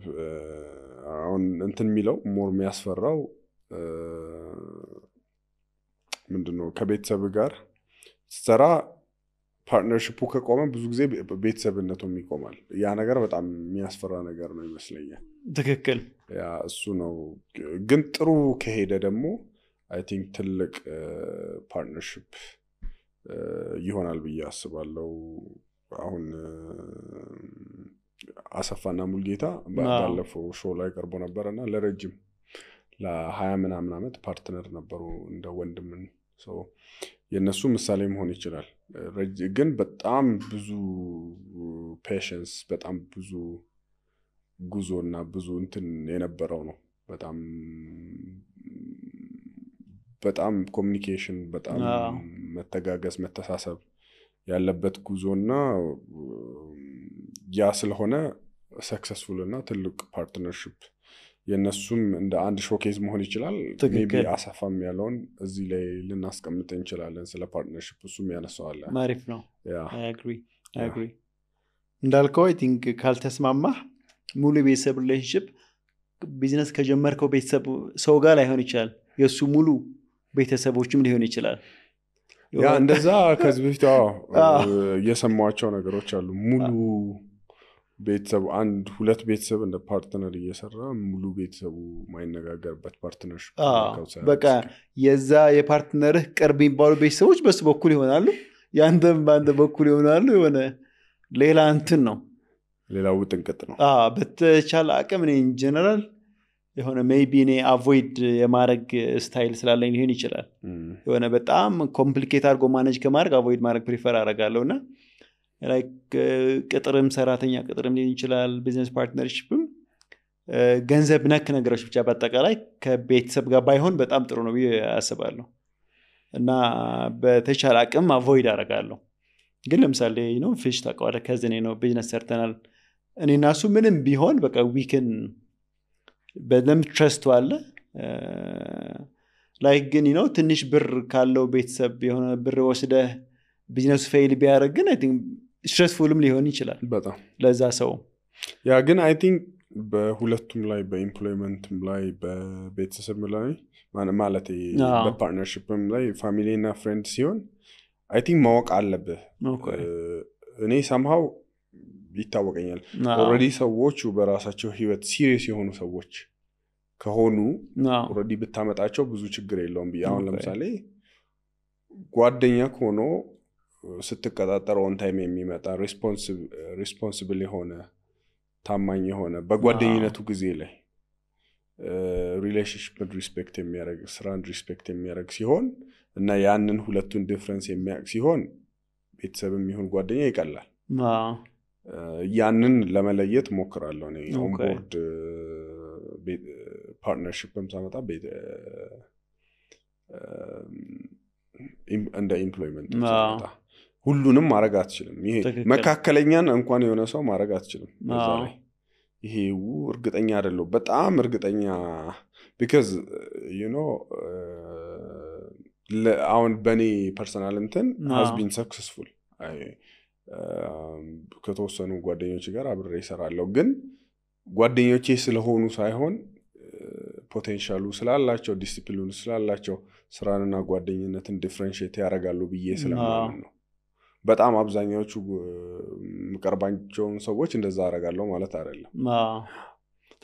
አሁን እንትን የሚለው ሞር የሚያስፈራው ምንድነው ከቤተሰብ ጋር ሰራ ፓርትነርሺፑ ከቆመ ብዙ ጊዜ ቤተሰብነቱም ይቆማል ያ ነገር በጣም የሚያስፈራ ነገር ነው ይመስለኛል ትክክል ያ እሱ ነው ግን ጥሩ ከሄደ ደግሞ አይ ቲንክ ትልቅ ፓርትነርሺፕ ይሆናል ብዬ አስባለሁ አሁን አሰፋና ሙልጌታ ባለፈው ሾው ላይ ቀርቦ ነበርና ለረጅም ለ20 ምናምን ዓመት ፓርትነር ነበሩ እንደ ወንድምን ሶ የነሱ ምሳሌ መሆን ይችላል ግን በጣም ብዙ ፔሽንስ በጣም ብዙ ጉዞና ብዙ እንትን የነበረው ነው በጣም ኮሙኒኬሽን በጣም መተጋገዝ መተሳሰብ ያለበት ጉዞና ያ ስለሆነ ሰክሰስፉል እና ትልቅ ፓርትነርሺፕ የነሱም እንደ አንድ ሾኬዝ መሆን ይችላል ሜቢ አሰፋም ያለውን እዚህ ላይ ልናስቀምጥ እንችላለን ስለ ፓርትነርሺፕ እሱም ያነሳዋል ማሪፍ ነው I agree እንዳልከው I think ካልተስማማ ሙሉ ቤተሰብ ሪሌሽንሺፕ ቢዝነስ ከጀመርከው ቤተሰብ ሰው ጋር ላይሆን ይችላል የሱ ሙሉ ቤተሰቦችም ሊሆን ይችላል ያ እንደዛ ከዚህ በፊት የሰማቸው ነገሮች አሉ ቤተሰቡ አንድ ሁለት ቤተሰብ እንደ ፓርትነር እየሰራ ሙሉ ቤተሰቡ ማይነጋገርበት ፓርትነርሽፕ በቃ የዛ የፓርትነርህ ቅርብ የሚባሉ ቤተሰቦች በሱ በኩል ይሆናሉ ያንተም በአንተ በኩል ይሆናሉ የሆነ ሌላ እንትን ነው ሌላው ጥንቅጥ ነው በተቻለ አቅም እኔ ኢንጀነራል የሆነ ሜይቢ እኔ አቮይድ የማድረግ ስታይል ስላለኝ ሊሆን ይችላል የሆነ በጣም ኮምፕሊኬት አድርጎ ማኔጅ ከማድረግ አቮይድ ማድረግ ፕሪፈር አደርጋለሁ እና ላይክ ቅጥርም ሰራተኛ ቅጥርም ሊሆን ይችላል ቢዝነስ ፓርትነርሺፕም ገንዘብ ነክ ነገሮች ብቻ በአጠቃላይ ከቤተሰብ ጋር ባይሆን በጣም ጥሩ ነው ብዬ አስባለሁ እና በተቻለ አቅም አቮይድ አደርጋለሁ ግን ለምሳሌ ፊሽ ታውቀዋለህ ከዝኔ ነው ቢዝነስ ሰርተናል እኔ እና እሱ ምንም ቢሆን በቃ ዊክን በደንብ ትረስቱ አለ ላይክ ግን ትንሽ ብር ካለው ቤተሰብ የሆነ ብር ወስደህ ቢዝነሱ ፌይል ቢያደርግ ግን አይ ቲንክ ስትሬስፉልም ሊሆን ይችላል በጣም ለዛ ሰው ያ ግን አይ ቲንክ በሁለቱም ላይ በኢምፕሎይመንትም ላይ በቤተሰብ ላይ ማለት በፓርትነርሺፕም ላይ ፋሚሊ እና ፍሬንድ ሲሆን አይ ቲንክ ማወቅ አለብህ እኔ somehow ይታወቀኛል ኦልሬዲ ሰዎቹ በራሳቸው ህይወት ሲሪየስ የሆኑ ሰዎች ከሆኑ ኦልሬዲ ብታመጣቸው ብዙ ችግር የለውም አሁን ለምሳሌ ጓደኛ ሆኖ ስትቀጣጠር ኦን ታይም የሚመጣ ሪስፖንሲብል የሆነ ታማኝ የሆነ በጓደኝነቱ ጊዜ ላይ ሪሌሽንሺፕን ሪስፔክት የሚያደርግ ስራን ሪስፔክት የሚያደርግ ሲሆን እና ያንን ሁለቱን ዲፍረንስ የሚያውቅ ሲሆን ቤተሰብም ይሁን ጓደኛ ይቀላል ያንን ለመለየት ሞክራለሁ እኔ ኦን ቦርድ ፓርትነርሺፕም ሳመጣ እንደ ኢምፕሎይመንት ሳመጣ ሁሉንም ማድረግ አትችልም ይሄ መካከለኛን እንኳን የሆነ ሰው ማድረግ አትችልም በዛ ላይ ይሄ እርግጠኛ አይደለም በጣም እርግጠኛ because አሁን በኔ ፐርሰናል እንትን has been successful ከተወሰኑ ጓደኞች ጋር አብሬ እሰራለሁ ግን ጓደኞቼ ስለሆኑ ሳይሆን ፖቴንሻሉ ስላላቸው ዲሲፕሊኑ ስላላቸው ስራንና ጓደኝነትን ዲፈረንሺየት ያደርጋሉ ብዬ ስለማምን ነው በጣም አብዛኛዎቹ ምቀርባቸውን ሰዎች እንደዛ አደርጋለሁ ማለት አይደለም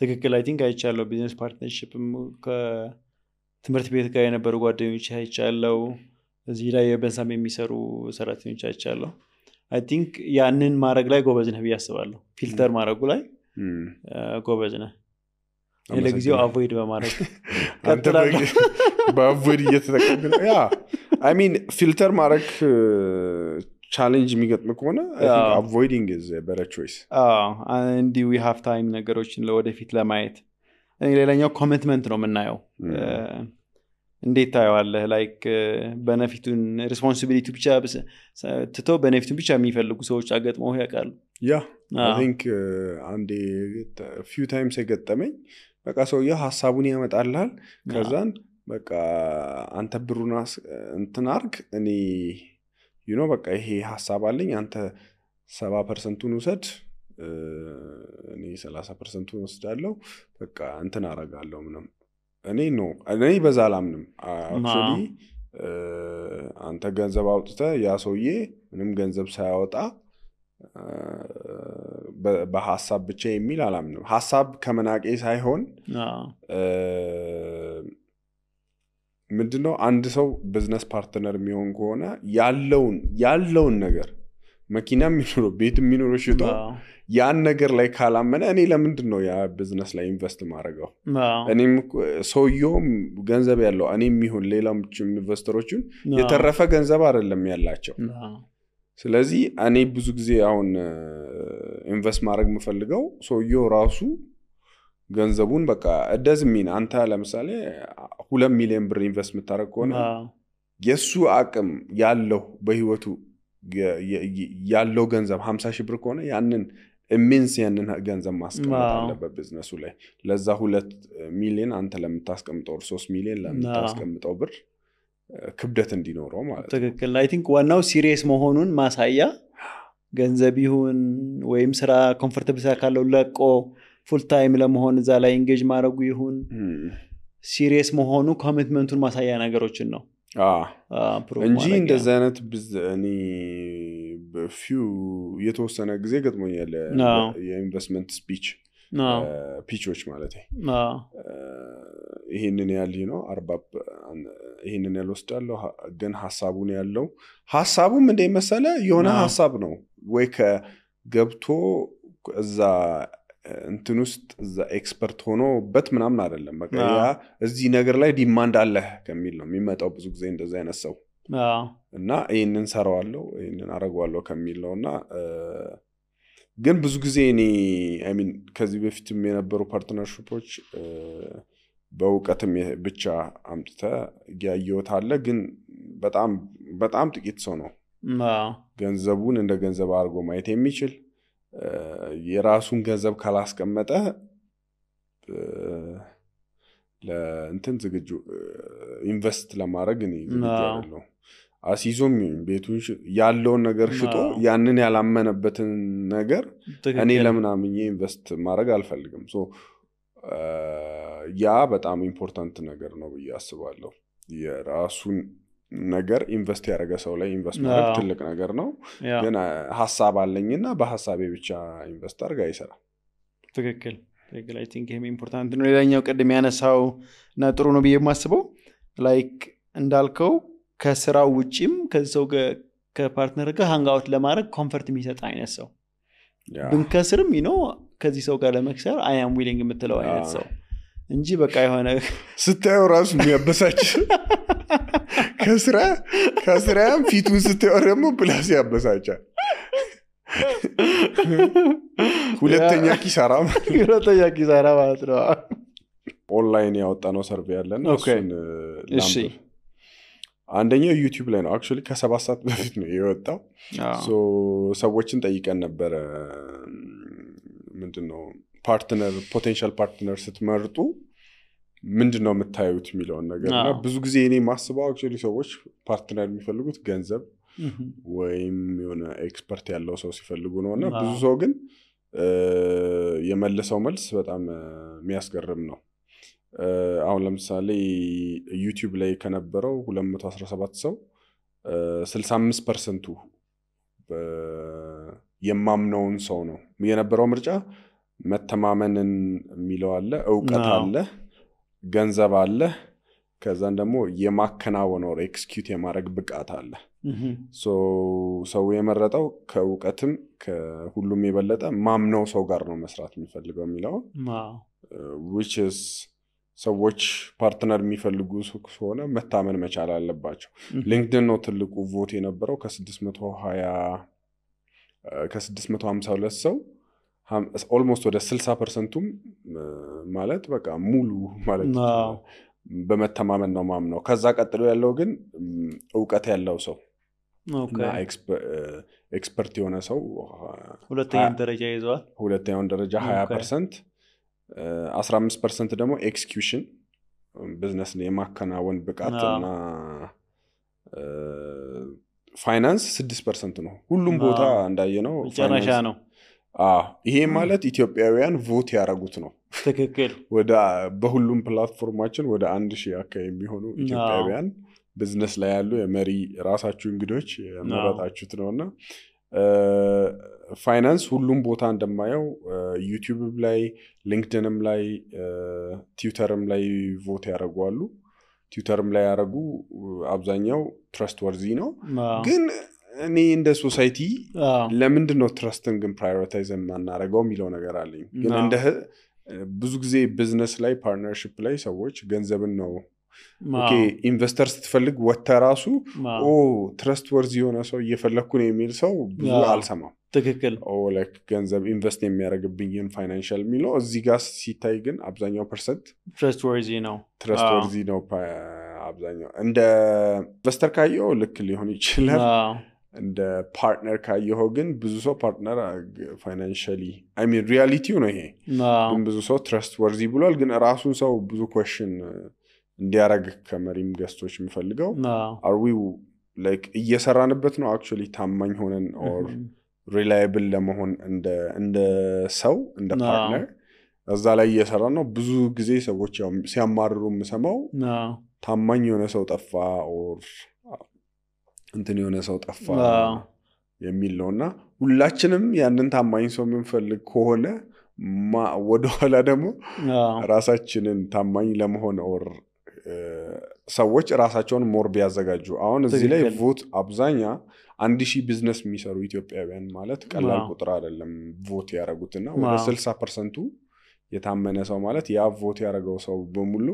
ትክክል አይ ቲንክ አይቻለሁ ቢዝነስ ፓርትነርሺፕም ከትምህርት ቤት ጋር የነበሩ ጓደኞች አይቻለሁ እዚህ ላይ በእንሳም የሚሰሩ ሰራተኞች አይቻለሁ አይ ቲንክ ያንን ማድረግ ላይ ጎበዝ ነህ ብዬ አስባለሁ ፊልተር ማድረጉ ላይ ጎበዝ ነህ ለጊዜው አቮይድ በማድረግ ቀጥላለሁ በአቮይድ እየተጠቀምክ ነው ያ አይ ሚን ፊልተር ማድረግ ቻሌንጅ የሚገጥም ከሆነ I think avoiding is a better choice and we have time ነገሮችን ለወደፊት ለማየት ሌላኛው ኮሚትመንት ነው የምናየው እንዴት ታየዋለህ ላይክ በነፊቱን ሪስፖንሲቢሊቲ ብቻ ትቶ በነፊቱን ብቻ የሚፈልጉ ሰዎች አገጥመው ያውቃሉ ያ I think አንዴ few times የገጠመኝ በቃ ሰውዬው ሐሳቡን ያመጣልሃል ከዛን በቃ አንተ ብሩን እንትን አርግ እኔ በቃ ይሄ ሐሳብ አለኝ አንተ 70% ውሰድ እኔ 30% ወስዳለሁ በቃ እንትን አረጋለሁ ምንም እኔ በዛ አላምንም actually አንተ ገንዘብ አውጥተህ ያ ሰውዬ ምንም ገንዘብ ሳያወጣ በሐሳብ ብቻ የሚል አላምንም ሐሳብ ከመናቄ ሳይሆን ምንድነው አንድ ሰው ቢዝነስ ፓርትነር የሚሆን ከሆነ ያለውን ነገር መኪና የሚኖረው ቤት የሚኖረው ሽጦ ያን ነገር ላይ ካላመነ እኔ ለምንድነው ያ ቢዝነስ ላይ ኢንቨስት ማድረገው እኔም ሰውየውም ገንዘብ ያለው እኔም ይሁን ሌላም ኢንቨስተሮችን የተረፈ ገንዘብ አይደለም ያላቸው ስለዚህ እኔ ብዙ ጊዜ አሁን ኢንቨስት ማድረግ የምፈልገው ሰውየው ራሱ ገንዘቡን በቃ እደዝሚን አንተ ለምሳሌ 2 ሚሊዮን ብር ኢንቨስት የምታደርግ ከሆነ የሱ አቅም ያለው በህይወቱ ያለው ገንዘብ 50,000 ብር ከሆነ ያንን ኢሜንስ ያንን ገንዘብ ማስቀመጥ አለበት ቢዝነሱ ላይ ለዛ 2 ሚሊዮን አንተ ለምታስቀምጠው 3 ሚሊዮን ለምታስቀምጠው ብር ክብደት እንዲኖረው ማለት ነው ትክክል አይ ቲንክ ዋናው ሲሪየስ መሆኑን ማሳያ ገንዘብ ይሁን ወይም ስራ ኮምፎርታብል ካለው ለቆ ፉል ታይም ለመሆን እዛ ላይ ኢንጌጅ ማድረጉ ይሁን ሲሪየስ መሆኑ ኮሚትመንቱን ማሳያ ነገሮችን ነው እንጂ እንደዚህ አይነት እኔ በፊው የተወሰነ ጊዜ ገጥሞኛል የኢንቨስትመንት ፒቾች ማለት ይሄንን ያህል ነው 40 ይሄንን ያህል ወስዳለሁ ግን ሐሳቡን ያለው ሐሳቡም እንደመሰለ የሆነ ሐሳብ ነው ወይ ከገብቶ እዛ እንትን ውስጥ እዛ ኤክስፐርት ሆኖበት ምናምን አይደለም በቃ ያ እዚህ ነገር ላይ ዲማንድ አለ ከሚል ነው የሚመጣው ብዙ ጊዜ እንደዛ አይነት ሰው እና ይሄንን ሰራዋለሁ ይሄንን አረጋዋለሁ ከሚል ነውና ግን ብዙ ጊዜ እኔ አይ ሚን ከዚህ በፊትም የነበሩ ፓርትነርሺፖች በእውቀትም ብቻ አምጥተ ያየውት አለ ግን በጣም ጥቂት ሰው ነው ገንዘቡን እንደ ገንዘብ አድርጎ ማየት የሚችል የራሱን ገንዘብ ካላስቀመጠ ለእንትን ዝግጁ ኢንቨስት ለማድረግ እኔ ዝግጁ አይደለሁ አሲዞም ቤቱን ያለውን ነገር ሽጦ ያንን ያላመነበትን ነገር እኔ ለምናምኜ ኢንቨስት ማድረግ አልፈልግም ያ በጣም ኢምፖርታንት ነገር ነው ብዬ አስባለሁ የራሱን ነገር ኢንቨስት ያደረገ ሰው ላይ ኢንቨስት ማድረግ ትልቅ ነገር ነው ግን ሐሳብ አለኝና በሐሳቤ ብቻ ኢንቨስት አድርጋ አይሰራም ትክክል አይ ቲንክ ይሄም ኢምፖርታንት ነው ሌላኛው ቀደም ያነሳው እና ጥሩ ነው ብዬ የማስበው ላይክ እንዳልከው ከስራው ውጪም ከሰው ከፓርትነር ጋር ሃንግ አውት ለማድረግ ኮምፈርት የሚሰጥ አይነት ሰው ብንከስርም ከዚህ ሰው ጋር ለመክሰር አይ አም ዊሊንግ የምትለው አይነት ሰው እንጂ በቃ የሆነ ስታየው ራሱ የሚያበሳጭ ከስራም ፊቱን ስታየው ደግሞ ፕላስ ያበሳጫል ሁለተኛ ኪሳራ ማለት ነው ኦንላይን ያወጣነው ሰርቬይ ያለን እሱን ላምብ አንደኛው ዩቲዩብ ላይ ነው አክቹሊ ከ7 ሰዓት በፊት ነው የወጣው ሰዎችን ጠይቀን ነበር ምንድነው ፖቴንሻል ፓርትነር ስትመርጡ ምንድነው የምታዩት የሚለውን ነገርና ብዙ ጊዜ እኔ ማስበው አክቹሊ ሰዎች ፓርትነር የሚፈልጉት ገንዘብ ወይም የሆነ ኤክስፐርት ያለው ሰው ሲፈልጉ ነውና ብዙ ሰው ግን የመለሰው መልስ በጣም የሚያስገርም ነው አሁን ለምሳሌ ዩቲዩብ ላይ ከነበረው 217 ሰው 65% የማምነውን ሰው ነው የነበረው ምርጫ መተማመንን የሚለው አለ ዕውቀት አለ ገንዘብ አለ ከዛን ደግሞ የማከናወን or execute የማድረግ ብቃት አለ ሰው የመረጠው ከዕውቀትም ከሁሉም የበለጠ ማምነው ሰው ጋር ነው መስራት የሚፈልገው የሚለው which is ሰዎች ፓርትነር የሚፈልጉ ሆነ መታመን መቻል አለባቸው ሊንክድኢን ነው ትልቁ ቮት የነበረው ከ652 ሰው almost ወደ 60%ም ማለት በቃ ሙሉ ማለት በመተማመን ነው ማምነው ከዛ ቀጥሎ ያለው ግን ዕውቀት ያለው ሰው እና ኤክስፐርት የሆነ ሰው ሁለተኛው ደረጃ ይዟል ሁለተኛው ደረጃ 20% 15% ደግሞ ኤክስኪዩሽን ቢዝነስ የማከናወን ብቃትና ፋይናንስ 6% ነው ሁሉም ቦታ እንዳየነው ጨረሻ ነው ይሄ ማለት ኢትዮጵያውያን ቮት ያረጉት ነው ትክክል በሁሉም ፕላትፎርማችን ወደ 1000 አካባቢ የሚሆኑ ኢትዮጵያውያን ቢዝነስ ላይ ያሉ የመሪ ራሳችሁ እንግዶች ያመረጣችሁት ነውና ፋይናንስ ሁሉም ቦታ እንደማየው ዩቲዩብ ላይ ሊንክድኢንም ላይ ትዊተርም ላይ ቮት ያረጋሉ ትዊተርም ላይ ያረጉ አብዛኛው ትረስት ወርዚ ነው ግን እኔ እንደ ሶሳይቲ ለምንድን ነው ትረስትን ግን ፕራዮሪታይዝ ማናረጋው የሚለው ነገር አለኝ ግን እንደ ብዙ ጊዜ ቢዝነስ ላይ ፓርትነርሺፕ ላይ ሰዎች ገንዘብን ነው ኦኬ ኢንቨስተር ስትፈልግ ወተራሱ ትረስት ወርዚ የሆነ ሰው እየፈለኩ ነው የሚል ሰው ብዙ አልሰማም ትክክል ላይክ ገንዘብ ኢንቨስት የሚያደርግብኝን ፋይናንሻል የሚለው እዚህ ጋር ሲታይ ግን አብዛኛው ፐርሰንት ትረስት ወርዚ ነው አብዛኛው እንደ ኢንቨስተር ካየው ልክ ሊሆን ይችላል እንደ ፓርትነር ካየው ግን ብዙ ሰው ፓርትነር ፋይናንሻሊ አይ ሚን ሪያሊቲው ነው ይሄ ግን ብዙ ሰው ትረስት ወርዚ ብሏል ግን ራሱን ሰው ብዙ ኳስችን እንዲያረግ ከመሪም ገስቶች የሚፈልገው are we like እየሰራንበት ነው actually ታማኝ ሆነን or reliable ለመሆን እንደ ሰው እንደ ፓርትነር እዛ ላይ እየሰራ ነው። ብዙ ጊዜ ሰዎች ያው ሲያማርሩ የምሰማው ታማኝ የሆነ ሰው ጠፋ ኦር እንትን የሆነ ሰው ጠፋ የሚል ነውና ሁላችንም ያንን ታማኝ ሰው የምንፈልግ ከሆነ ወደኋላ ደግሞ ራሳችንን ታማኝ ለመሆን ኦር ሰዎች ራሳቸውን ሞር ቢያዘጋጁ አሁን እዚህ ላይ ቮት አብዛኛ 1000 ቢዝነስ የሚሰሩ ኢትዮጵያውያን ማለት ቀላል ቁጥር አይደለም ቮት ያደረጉትና ወደ 60% የታመነ ሰው ማለት ያ ቮት ያደረገው ሰው በሙሉ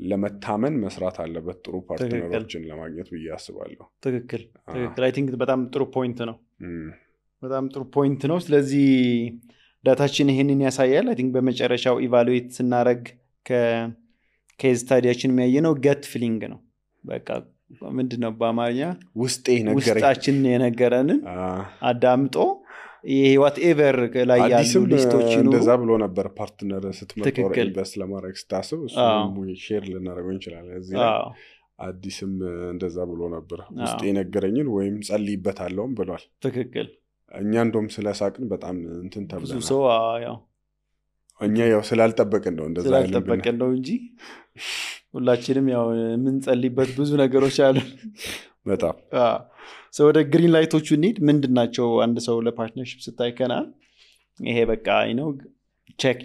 ለመታመን መስራት አለበት ጥሩ ፓርትነሮችን ለማግኘት ብዬ አስባለሁ። ትክክል አይ ቲንክ በጣም ጥሩ ፖይንት ነው። በጣም ጥሩ ፖይንት ነው። ስለዚህ ዳታችን ይሄንን ያሳያል። አይ ቲንክ በመጨረሻው ኢቫሉዌት ስናረግ ከኬዝ ስታዲያችን የሚያየነው ገት ፊሊንግ ነው። በቃ ምንድነው በአማርኛ ውስጣችን የነገረንን አዳምጦ ይሄ ዋትኤቨር ላይ ያሉ ሊስቶች ነው እንደዛ ብሎ ነበር ፓርትነር ስትመጣው ኢንቨስት ለማድረግ ስታስብ እሱ ሼር ልናደርገው እንችላለን። እዚህ አዲስም እንደዛ ብሎ ነበር ውስጤ የነገረኝን ወይም ጸልይበታለሁም ብሏል። ትክክል እኛ እንደውም ስለሳቅን በጣም እንትን ተብለናል። ብዙ ሰው ያው እኛ ያው ስላልጠበቅን ነው እንደዛ ያለን ስላልጠበቅን ነው እንጂ ሁላችንም ያው ምን ጸልይበት ብዙ ነገሮች አሉ። በጣም ሰው ወደ ግሪን ላይቶቹ እንሂድ። ምንድናቸው አንድ ሰው ለፓርትነርሺፕ ስታይከና ይሄ በቃ ቼክ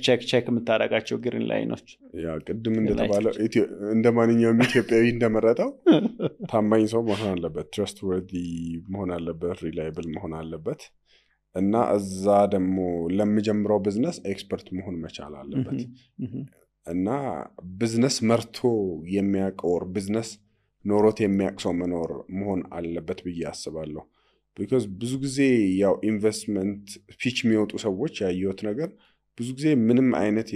የምታደርጋቸው ግሪን ላይኖች? ያ ቅድም እንደተባለው እንደ ማንኛውም ኢትዮጵያዊ እንደመረጠው ታማኝ ሰው መሆን አለበት፣ trustworthy መሆን አለበት፣ reliable መሆን አለበት እና እዛ ደግሞ ለሚጀምረው ቢዝነስ ኤክስፐርት መሆን መቻል አለበት እና ቢዝነስ መርቶ የሚያውቀው ቢዝነስ ኖሮት የሚያቅሰው መሆን አለበት ብዬ አስባለሁ። because ብዙ ጊዜ ያው ኢንቨስትመንት ፒች የሚወጡ ሰዎች ያየሁት ነገር ብዙ ጊዜ ምንም አይነት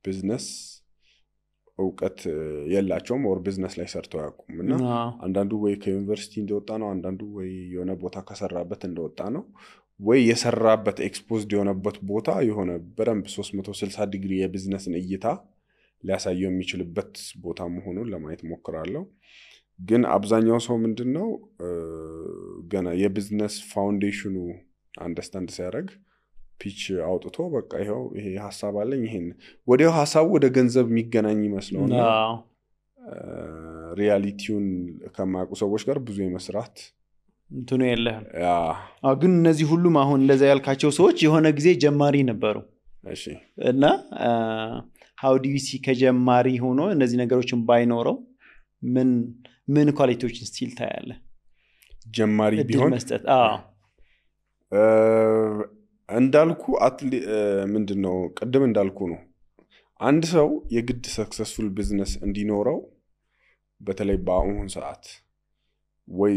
ቢዝነስ እውቀት የላቸውም ኦር ቢዝነስ ላይ ሰርተው ያውቁም እና አንዳንዱ ወይ ከዩኒቨርሲቲ እንደወጣ ነው፣ አንዳንዱ ወይ የሆነ ቦታ ከሰራበት እንደወጣ ነው፣ ወይ የሰራበት ኤክስፖዝድ የሆነበት ቦታ የሆነ በደንብ 360 ዲግሪ የቢዝነስን እይታ ሊያሳየው የሚችልበት ቦታ መሆኑን ለማየት ሞክራለሁ። ግን አብዛኛው ሰው ምንድነው ገና የቢዝነስ ፋውንዴሽኑ አንደርስታንድ ሲያደርግ ፒች አውጥቶ በቃ ይሄ ሐሳብ አለኝ ይሄን ወዲያው ሐሳቡ ወደ ገንዘብ የሚገናኝ ይመስለውና ሪያሊቲውን ከማያውቁ ሰዎች ጋር ብዙ የመስራት እንትኑ የለህም። ግን እነዚህ ሁሉም አሁን እንደዛ ያልካቸው ሰዎች የሆነ ጊዜ ጀማሪ ነበሩ። እሺ እና how do you see ከጀማሪ ሆኖ እነዚህ ነገሮችን ባይኖረው ምን ኳሊቲዎችን ስቲል ታያለ? ጀማሪ ቢሆን መስጠት እንዳልኩ ምንድነው ቅድም እንዳልኩ ነው አንድ ሰው የግድ ሰክሰስፉል ቢዝነስ እንዲኖረው በተለይ በአሁን ሰዓት ወይ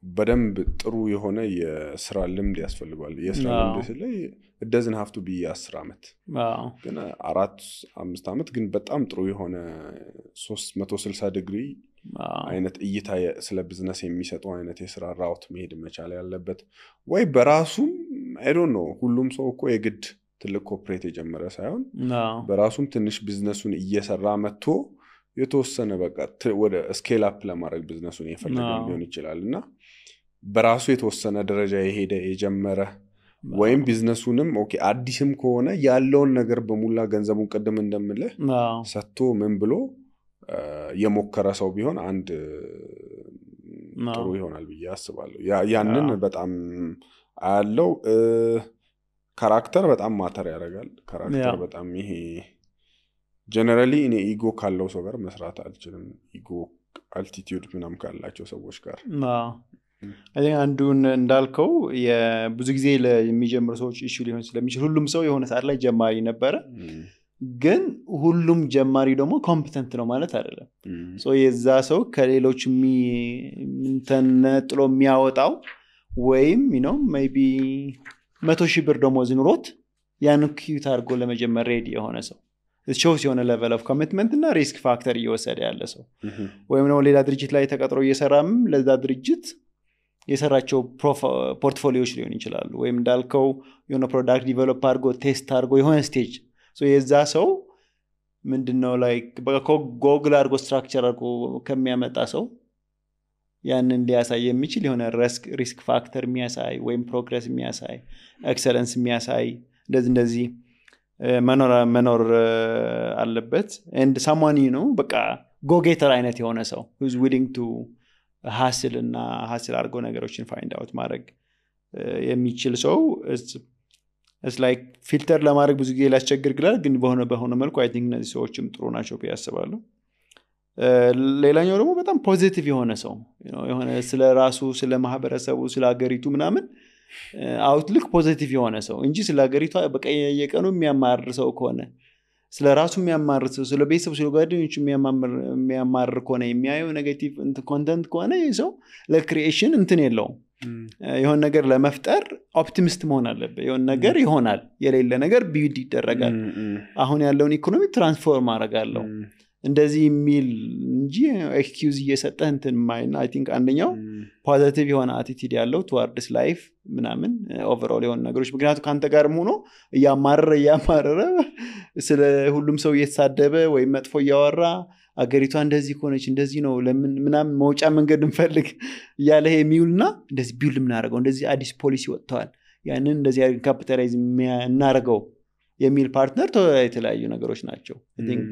በደንብ ጥሩ የሆነ የስራ ልምድ ያስፈልጋል። የስራ ልምድ ስለይ it doesn't have to be 10 አመት ግን 4-5 አመት ግን በጣም ጥሩ የሆነ 360 ዲግሪ አይነት እይታ ስለ ቢዝነስ የሚሰጠው አይነት የስራ ራውት መሄድ መቻል ያለበት ወይ በራሱም I don't know ሁሉም ሰው እኮ የግድ ትልቅ ኮርፖሬት የጀመረ ሳይሆን በራሱም ትንሽ ቢዝነሱን እየሰራ መጥቶ የተወሰነ በቃ ወደ ስኬል አፕ ለማድረግ ቢዝነሱን የፈለገ ሊሆን ይችላልና በራሱ የተወሰነ ደረጃ የሄደ የጀመረ ወይም ቢዝነሱንም ኦኬ አዲስም ከሆነ ያለውን ነገር በሙላ ገንዘቡን ቀደም እንደምልህ ሰጥቶ ምን ብሎ የሞከረ ሰው ቢሆን አንድ ጥሩ ይሆናል ብዬ አስባለሁ። ያንን በጣም አለው ካራክተር በጣም ማተር ያደርጋል። ካራክተር በጣም ይሄ ጀነራሊ እኔ ኢጎ ካለው ሰው ጋር መስራት አልችልም። ኢጎ አልቲቲዩድ ምናምን ካላቸው ሰዎች ጋር አንዱን እንዳልከው ብዙ ጊዜ ለሚጀምሩ ሰዎች ኢሹ ሊሆን ስለሚችል ሁሉም ሰው የሆነ ሰዓት ላይ ጀማሪ ነበረ። ግን ሁሉም ጀማሪ ደግሞ ኮምፒተንት ነው ማለት አይደለም። የዛ ሰው ከሌሎች ተነጥሎ የሚያወጣው ወይም ሜቢ 100,000 ብር ደሞዝ ኑሮት ያን ኪዩት አድርጎ ለመጀመር ሬዲ የሆነ ሰው shows የሆነ level of commitment እና risk factor እየወሰደ ያለ ሰው ወይም ነው ሌላ ድርጅት ላይ ተቀጥሮ እየሰራም ለዛ ድርጅት የሰራቸው ፖርትፎሊዮዎች ሊሆን ይችላሉ ወይም እንዳልከው የሆነ ፕሮዳክት ዲቨሎፕ አድርጎ ቴስት አድርጎ የሆነ ስቴጅ የዛ ሰው ምንድነው ላይክ ጎግል አድርጎ ስትራክቸር አድርጎ ከሚያመጣ ሰው ያንን ሊያሳይ የሚችል የሆነ ሪስክ ፋክተር የሚያሳይ ወይም ፕሮግረስ የሚያሳይ ኤክሰለንስ የሚያሳይ እንደዚህ መኖር አለበት and someone በቃ ጎጌተር አይነት የሆነ ሰው who's willing to hustle እና hustle አድርጎ ነገሮችን find out ማድረግ የሚችል ሰው it's like ፊልተር ለማድረግ ብዙ ጊዜ ሊያስቸግር ይችላል ግን በሆነ መልኩ I think እነዚህ ሰዎችም ጥሩ ናቸው ብዬ አስባለሁ ሌላኛው ደግሞ በጣም ፖዚቲቭ የሆነ ሰው የሆነ ስለ ራሱ ስለ ማህበረሰቡ ስለ ሀገሪቱ ምናምን አውትሉክ ፖዚቲቭ የሆነ ሰው እንጂ ስለ ሀገሪቱ በቃ የቀኑ የሚያማርር ሰው ከሆነ ስለ ራሱ የሚያማርር ሰው ስለ ቤተሰቡ ስለ ጓደኞቹ የሚያማርር ከሆነ የሚያየው ኔጌቲቭ ኮንተንት ከሆነ ይሄ ሰው ለክሪኤሽን እንትን የለውም የሆነ ነገር ለመፍጠር ኦፕቲሚስት መሆን አለበት የሆነ ነገር ይሆናል የሌለ ነገር ቢውልድ ይደረጋል አሁን ያለውን ኢኮኖሚ ትራንስፎርም አደርጋለሁ እንደዚህ የሚል እንጂ ኤክስኪውዝ እየሰጠህ እንትን ማይና አይ ቲንክ አንደኛው ፖዚቲቭ የሆነ አቲቲዩድ ያለው towards life ምናምን ኦቨርኦል የሆነ ነገሮች ምክንያቱም ካንተ ጋርም ሆኖ እያማረረ ስለ ሁሉም ሰው እየተሳደበ ወይ መጥፎ እያወራ አገሪቷ እንደዚህ ሆነች እንደዚህ ነው ለምን ምናምን መውጫ መንገድ እንፈልግ ያለ የሚውልና እንደዚህ ቢውል ምናረጋው እንደዚህ አዲስ ፖሊሲ ወጥቷል ያንን እንደዚህ ካፒታላይዝ እናረጋው የሚል ፓርትነር የተለያዩ ነገሮች ናቸው I think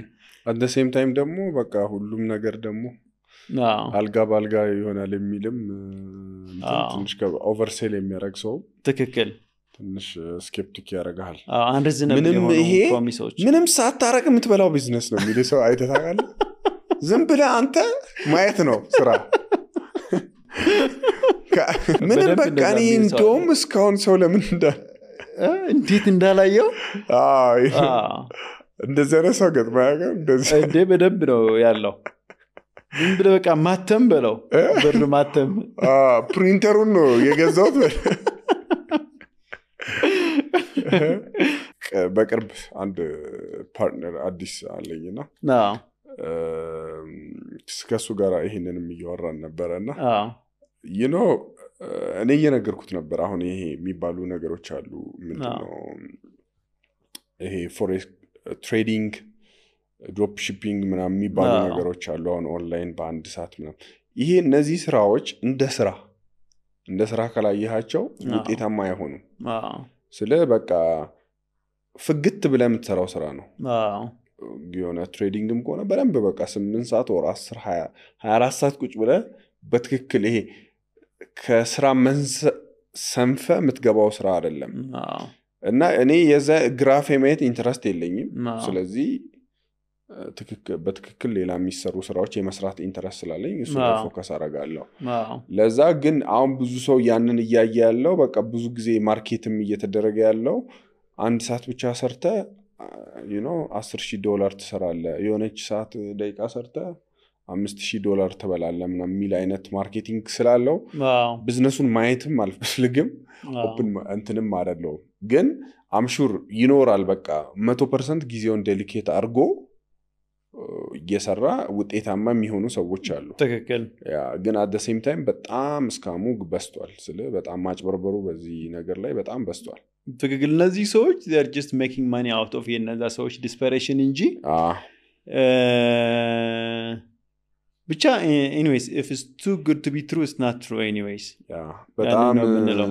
at the same time ደግሞ በቃ ሁሉም ነገር ደግሞ አልጋ ባልጋ ይሆናል የሚልም ትንሽ ኦቨርሴል የሚያደርግ ሰው ትክክል ትንሽ ስኬፕቲክ ያደርጋል ምንም ሳታረቅ የምትበላው ቢዝነስ ነው የሚል ሰው አይተታቃል ዝም ብለህ አንተ ማየት ነው ስራ ምንም በቃ እኔ እንደውም እስካሁን ሰው ለምን እንዴት እንዳላየው እንደዚህ አይነት ሰው ገጥማ ያገር እንዴ በደንብ ነው ያለው ዝም ብለህ በቃ ማተም በለው ብር ማተም ፕሪንተሩን ነው የገዛሁት በቅርብ አንድ ፓርትነር አዲስ አለኝና ከሱ ጋር ይሄንንም እያወራን ነበረና እኔ እየነገርኩት ነበር አሁን ይሄ የሚባሉ ነገሮች አሉ ምንድነው ይሄ ፎሬክስ ትሬዲንግ ድሮፕ ሺፒንግ ምናምን የሚባሉ ነገሮች አሉ አሁን ኦንላይን በአንድ ሰዓት ምናምን ይሄ እነዚህ ስራዎች እንደ ስራ ካላየሃቸው ውጤታማ አይሆኑም ስለ በቃ ፍግት ብለህ የምትሰራው ስራ ነው የሆነ ትሬዲንግም ከሆነ በደንብ በቃ 8 ሰዓት ወር 10 24 ሰዓት ቁጭ ብለህ በትክክል ይሄ ከስራ ሰንፈ የምትገባው ስራ አይደለም እና እኔ የዛ ግራፍ የማየት ኢንተረስት የለኝም ስለዚህ በትክክል ሌላ የሚሰሩ ስራዎች የመስራት ኢንተረስት ስላለኝ እሱ ፎከስ አደርጋለሁ ለዛ ግን አሁን ብዙ ሰው ያንን እያየ ያለው በቃ ብዙ ጊዜ ማርኬትም እየተደረገ ያለው አንድ ሰዓት ብቻ ሰርተ $10,000 ትሰራለህ የሆነች ሰዓት ደቂቃ ሰርተ $5,000 ትበላለህ ምናምን የሚል አይነት ማርኬቲንግ ስላለው ቢዝነሱን ማየትም አልፈልግም ኦፕን እንትንም አይደለም ግን አምሹር ይኖራል በቃ 100% ጊዜውን ዴሊኬት አድርጎ እየሰራ ውጤታማ የሚሆኑ ሰዎች አሉ ትክክል ግን at the same time በጣም ስካሙ በስቷል ስለ በጣም ማጭበርበሩ በዚህ ነገር ላይ በጣም በስቷል ትክክል እነዚህ ሰዎች they are just making money out of የነዛ ሰዎች desperation እንጂ ብቻ anyways if it's too good to be true it's not true anyways በጣም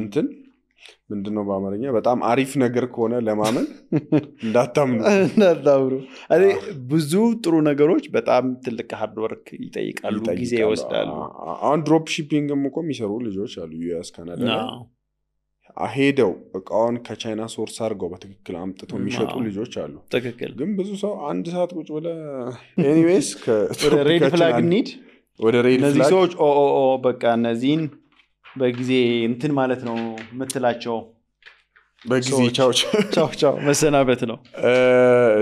እንትን ምንድነው በአማርኛ በጣም አሪፍ ነገር ከሆነ ለማመን እንዳታምኑ አይ ብዙ ጥሩ ነገሮች በጣም ትልቅ ሃርድ ወርክ ይጠይቃሉ ጊዜ ይወስዳሉ አሁን ድሮፕ ሺፒንግም እኮ የሚሰሩ ልጆች አሉ ዩኤስ ካናዳ አሄደው እቃውን ከቻይና ሶርስ አድርገው በትክክል አምጥተው የሚሸጡ ልጆች አሉ ትክክል ግን ብዙ ሰው አንድ ሰዓት ቁጭ ብለ ኤኒዌይስ ሬድ ፍላግ ኒድ ወደ ሬድ ፍላግ እነዚህ ሰዎች በቃ እነዚህን በጊዜ እንትን ማለት ነው ምትላቸው በጊዜ ቻው መሰናበት ነው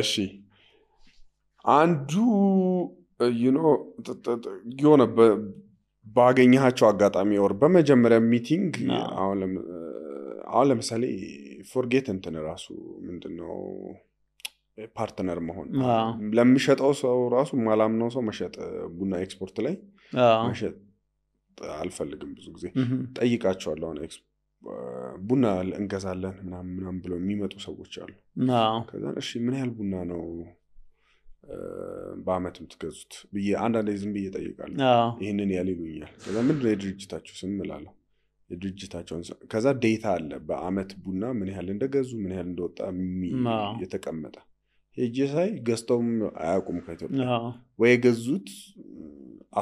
እሺ አንዱ የሆነ ባገኘሃቸው አጋጣሚ ወር በመጀመሪያ ሚቲንግ አሁን ለምሳሌ ፎርጌት እንትን ራሱ ምንድነው ፓርትነር መሆን ለሚሸጠው ሰው ራሱ ማላምነው ሰው መሸጥ ቡና ኤክስፖርት ላይ መሸጥ አልፈልግም ብዙ ጊዜ ጠይቃቸዋለሁ አሁን ቡና እንገዛለን ምናምን ብለው የሚመጡ ሰዎች አሉ ከዛ እሺ ምን ያህል ቡና ነው በአመት የምትገዙት ብዬ አንዳንዴ ዝም ብዬ ጠይቃለሁ ይሄንን ያህል ይሉኛል ከዛ ምንድነው የድርጅታችሁ ስም እላለሁ የድርጅታቸውን ከዛ ዴታ አለ በአመት ቡና ምን ያህል እንደገዙ ምን ያህል እንደወጣ የተቀመጠ ሄጄ ሳይ ገዝተውም አያውቁም ከኢትዮጵያ ወይ የገዙት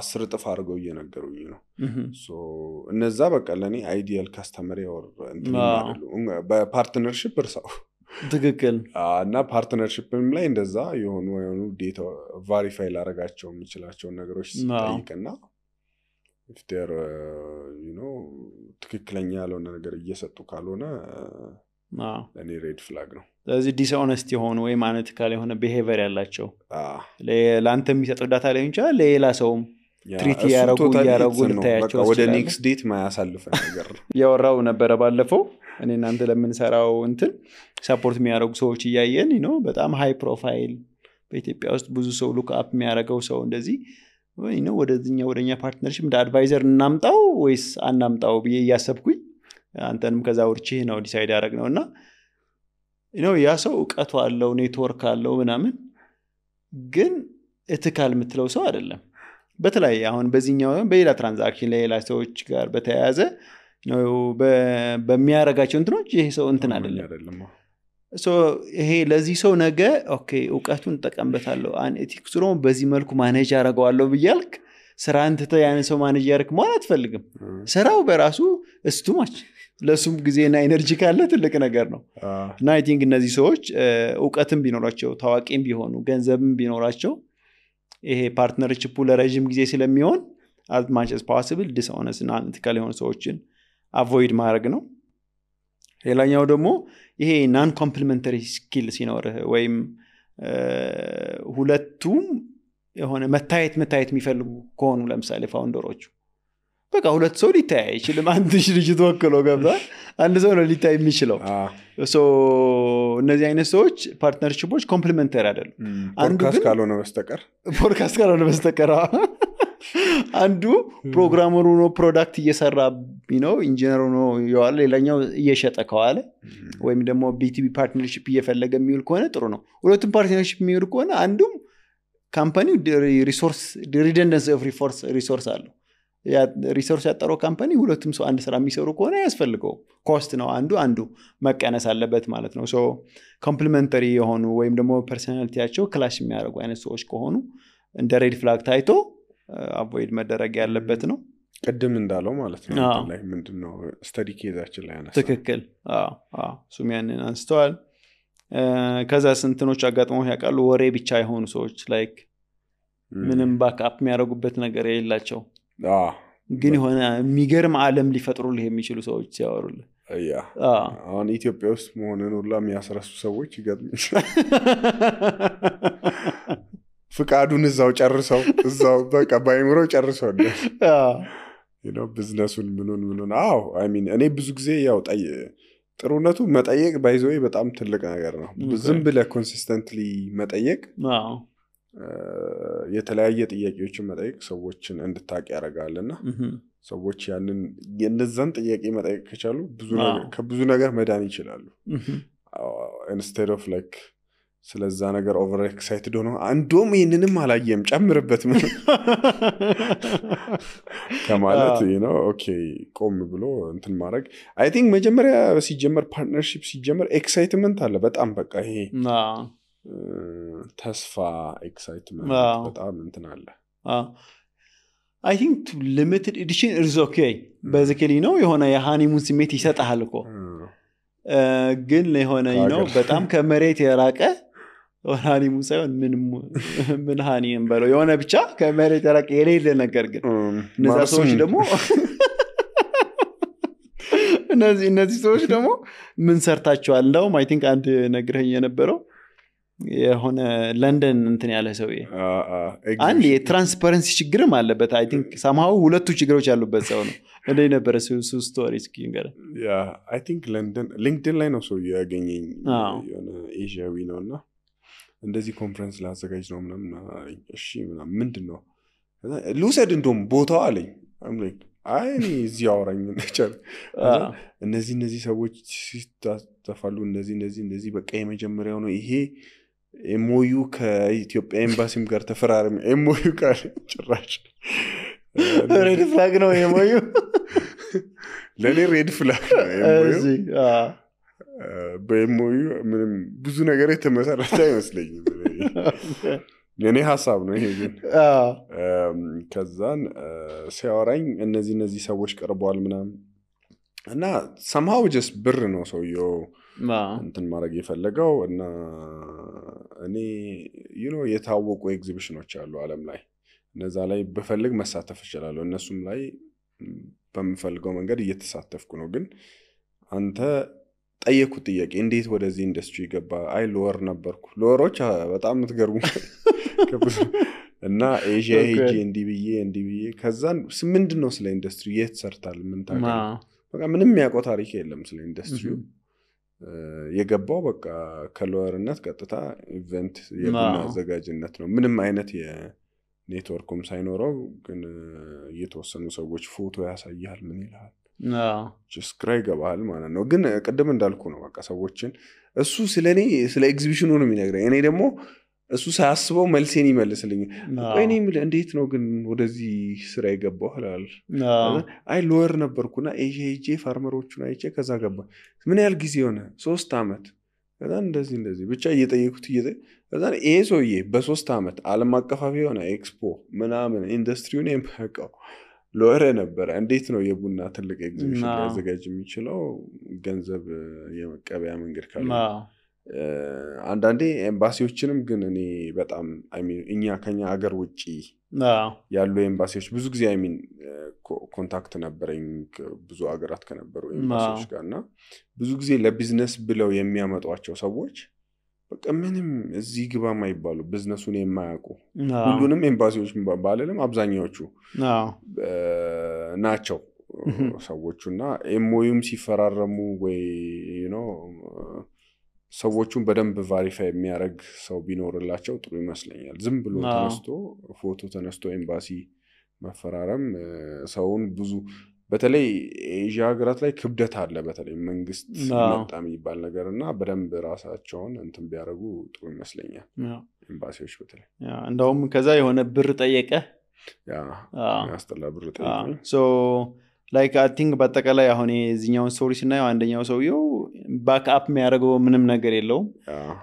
10 እጥፍ አድርገው እየነገሩኝ ነው እነዛ በቃ ለእኔ አይዲያል ካስተመር ያወር በፓርትነርሽፕ እርሳው ትክክል እና ፓርትነርሽፕም ላይ እንደዛ የሆኑ ዴታ ቫሪፋይ ላረጋቸው የሚችላቸውን ነገሮች ሲጠይቅና if they're ትክክለኛ ያልሆነ ነገር እየሰጡ ካልሆነ ለኔ ሬድ ፍላግ ነው ስለዚህ ዲስኦነስት የሆኑ ወይ ማነቲካል የሆነ ቢሄቪየር ያላቸው ለአንተ የሚሰጠው ዳታ ላይ እንቻ ለሌላ ሰውም ትሪት ያረጉ ልታያቸው ወደ ኔክስት ዴት ማያሳልፈ ነገር ያወራው ነበር ባለፈው እኔ እናንተ ለምንሰራው እንትን ሰፖርት የሚያደርጉ ሰዎች እያየን በጣም ሃይ ፕሮፋይል በኢትዮጵያ ውስጥ ብዙ ሰው ሉክ አፕ የሚያደርገው ሰው እንደዚህ ወደኛ ፓርትነርሺፕ እንደ አድቫይዘር እናምጣው ወይስ አናምጣው ብዬ እያሰብኩኝ አንተንም ከዛ ወርቼ ነው ዲሳይድ ያደረግነውና ያ ሰው ዕውቀቱ አለው ኔትወርክ አለው ምናምን ግን እትካል የምትለው ሰው አይደለም በተለይ አሁን በዚህኛው በሌላ ትራንዛክሽን ለሌላ ሰዎች ጋር በተያያዘ በሚያረጋቸው እንትኖች ይሄ ሰው እንትን አይደለም ይሄ ለዚህ ሰው ነገ ኦኬ ዕውቀቱን ተጠቀምበታለሁ ኤቲክስ ነው በዚህ መልኩ ማኔጅ አደርገዋለሁ ብያልክ ስራን ትተህ ያን ሰው ማኔጅ ያርክ ማለት አትፈልግም ስራው በራሱ እስቱማች ለሱም ጊዜና ኤነርጂ ካለ ትልቅ ነገር ነው እና አይ ቲንክ እነዚህ ሰዎች ዕውቀትም ቢኖራቸው ታዋቂም ቢሆኑ ገንዘብም ቢኖራቸው ይሄ ፓርትነርሺፑ ለረጅም ጊዜ ስለሚሆን as much as possible dishonest እና unethical የሆኑ ሰዎችን avoid ማድረግ ነው ሌላኛው ደግሞ ይሄ non complementary skill ሲኖር ወይም ሁለቱም የሆነ መታየት የሚፈልጉ ከሆኑ ለምሳሌ ፋውንደሮቹ በቃ ሁለት ሰው ሊታይ ይችላል አንድ ልጅ ተወክሎ ገብቷል አንድ ሰው ነው ሊታይ የሚችለው እነዚህ አይነት ሰዎች ፓርትነርሺፖች ኮምፕሊመንተሪ አይደሉም ፖድካስት ካልሆነ በስተቀር አንዱ ፕሮግራመሩ ነው ፕሮዳክት እየሰራ ኢንጂነሩ ነው ያለ ሌላኛው እየሸጠ ከዋለ ወይም ደግሞ ቢቲቢ ፓርትነርሺፕ እየፈለገ የሚውል ከሆነ ጥሩ ነው ሁለቱም ፓርትነርሺፕ የሚውል ከሆነ አንዱም ካምፓኒው ሪሶርስ ሪደንደንሲ ኦፍ ሪሶርስ አለው ያ ሪሶርስ ያጠረው ካምፓኒ ሁለቱም ሰው አንድ ስራ የሚሰሩ ከሆነ ያስፈልገው ኮስት ነው አንዱ መቀነስ አለበት ማለት ነው ኮምፕሊመንተሪ የሆኑ ወይም ደግሞ ፐርሰናሊቲያቸው ክላሽ የሚያደርጉ አይነት ሰዎች ከሆኑ እንደ ሬድ ፍላግ ታይቶ አቮይድ መደረግ ያለበት ነው ቅድም እንዳለው ማለት ነው ላይ ምንድነው ስተዲ ኬዛችን ላይ አነሳ ትክክል ሱም ያንን አንስተዋል ከዛ ስንትኖች አጋጥሞ ያውቃሉ ወሬ ብቻ የሆኑ ሰዎች ላይክ ምንም ባክአፕ የሚያደርጉበት ነገር የሌላቸው ግን የሆነ የሚገርም ዓለም ሊፈጥሩልህ የሚችሉ ሰዎች ሲያወሩልህ አሁን ኢትዮጵያ ውስጥ መሆንን ሁላ የሚያስረሱ ሰዎች ይገጥሙኝ ፍቃዱን እዛው ጨርሰው እዛው በቃ ባይምሮ ጨርሰው ቢዝነሱን ምኑን አይ ሚን እኔ ብዙ ጊዜ ያው ጥሩነቱ መጠየቅ ባይዘው በጣም ትልቅ ነገር ነው ዝም ብለህ ኮንሲስተንትሊ መጠየቅ የተለያየ ጥያቄዎችን መጠየቅ ሰዎችን እንድታቅ ያደርጋልና ሰዎች ያንን የነዛን ጥያቄ መጠየቅ ከቻሉ ከብዙ ነገር መዳን ይችላሉ instead of like ስለዛ ነገር ኦቨር ኤክሳይትድ ሆኖ አንዶም ይሄንንም አላየም ጨምርበት ምን ከማለት ኦኬ ቆም ብሎ እንትን ማድረግ አይ ቲንክ መጀመሪያ ሲጀመር ፓርትነርሺፕ ሲጀመር ኤክሳይትመንት አለ በጣም በቃ ይሄ ተስፋ ኤክሳይትመንት በጣም እንትን አለ I think to limited edition is okay basically የሆነ የሃኒሙን ስሜት ይሰጣል እኮ ግን ለሆነ በጣም ከመሬት የራቀ ሃኒሙን ሳይሆን ምን ሃኒም በለው የሆነ ብቻ ከመሬት የራቀ የሌለ ነገር ግን እነዛ ሰዎች ደግሞ እነዚህ ሰዎች ደግሞ ምን ሰርታቸዋል እንደውም I think አንድ ነግረኝ የነበረው የሆነ ለንደን እንትን ያለ ሰውዬ አንድ የትራንስፓረንሲ ችግርም አለበት I think somehow ሁለቱ ችግሮች ያሉበት ሰው ነው እንደ ነበር እሱ ስቶሪ ስኪንገር I think ለንደን ሊንክድኢን ላይ ነው ሰው ያገኘኝ የሆነ ኤዥያዊ ነውና እንደዚህ ኮንፈረንስ ላዘጋጅ ነው ምናምን እሺ ምናምን ምንድነው ልውሰድ እንደውም ቦታው አለኝ I'm like አይ እዚህ አወራኝ ነበር እነዚህ ሰዎች ሲታፈሉ እነዚህ በቃ የመጀመሪያው ነው ይሄ ኤምኦዩ ከኢትዮጵያ ኤምባሲም ጋር ተፈራረም ኤምኦዩ ጋር ጭራሽ ሬድ ፍላግ ነው ኤምኦዩ ለኔ ሬድ ፍላግ በኤምኦዩ ምንም ብዙ ነገር የተመሰረተ አይመስለኝም የኔ ሐሳብ ነው ይሄ ግን ከዛን ሲያወራኝ እነዚህ ሰዎች ቀርበዋል ምናምን እና somehow just ብር ነው ሰውየው እንትን ማድረግ የፈለገው እና እኔ የታወቁ ኤግዚቢሽኖች አሉ ዓለም ላይ እነዛ ላይ በፈልግ መሳተፍ ይችላል እነሱም ላይ በመፈልገው መንገድ እየተሳተፍኩ ነው ግን አንተ ጠየቁት ጥያቄ እንዴት ወደዚህ ኢንዱስትሪ ገባ አይ ሎወር ነበርኩ ሎወሮች በጣም ምትገርሙ እና ኤዥያ ሄጄ እንዲብዬ ከዛን ምንድነው ስለ ኢንዱስትሪ የት ሰርታል ምን ታውቃለህ በቃ ምንም ያውቀው ታሪክ የለም ስለ ኢንዱስትሪው የገባው በቃ ከሎወርነት ቀጥታ ኢቨንት የቡና አዘጋጅነት ነው ምንም አይነት የኔትወርኩም ሳይኖረው ግን የተወሰኑ ሰዎች ፎቶ ያሳያል ምን ይላል ስክራይ ገባል ማለት ነው ግን ቀደም እንዳልኩ ነው በቃ ሰዎችን እሱ ስለኔ ስለ ኤግዚቢሽኑ ነው የሚነግረኝ እኔ ደግሞ እሱ ሳያስበው መልሴን ይመልስልኝ ቆይኔ እንዴት ነው ግን ወደዚህ ስራ የገባው አላል አይ ሎወር ነበርኩና ኤጄ ፋርመሮቹን አይቼ ከዛ ገባ ምን ያህል ጊዜ ሆነ 3 አመት ከዛ እንደዚህ ብቻ እየጠየቁት ከዛ ይሄ ሰውዬ በ3 አመት ዓለም አቀፋዊ የሆነ ኤክስፖ ምናምን ኢንዱስትሪውን የማያውቀው ሎወር ነበር እንዴት ነው የቡና ትልቅ ኤግዚቢሽን ሊያዘጋጅ የሚችለው ገንዘብ የመቀበያ መንገድ ካለ አንዳንዴ ኤምባሲዎችንም ግን እኔ በጣም እኛ ከኛ ሀገር ውጪ ያሉ ኤምባሲዎች ብዙ ጊዜ ኮንታክት ነበረኝ ብዙ ሀገራት ከነበሩ ኤምባሲዎች ጋርና ብዙ ጊዜ ለቢዝነስ ብለው የሚያመጧቸው ሰዎች በቃ ምንም እዚህ ግባ ማይባሉ ቢዝነሱን የማያውቁ ሁሉንም ኤምባሲዎች ባለለም አብዛኛዎቹ ናቸው ሰዎቹና ኤምኦዩም ሲፈራረሙ ወይ ሰዎቹን በደንብ ቫሪፋይ የሚያደርግ ሰው ቢኖርላቸው ጥሩ ይመስለኛል ዝም ብሎ ፎቶ ተነስቶ ኤምባሲ መፈራረም ሰውን ብዙ በተለይ ኤዥያ ሀገራት ላይ ክብደት አለ በተለይ መንግስት መጣም ይባል ነገርና በደንብ ራሳቸውን እንትን ቢያደርጉ ጥሩ ይመስለኛል ኤምባሲዎች በተለይ እንደውም ከዛ የሆነ ብር ጠየቀ ያስተላ ብር ጠየቀ ሶ ላይክ አይ ቲንክ በአጠቃላይ አሁን እዚህኛውን ስቶሪ ስናየው አንደኛው ሰውየው ባክአፕ የሚያደርገው ምንም ነገር የለውም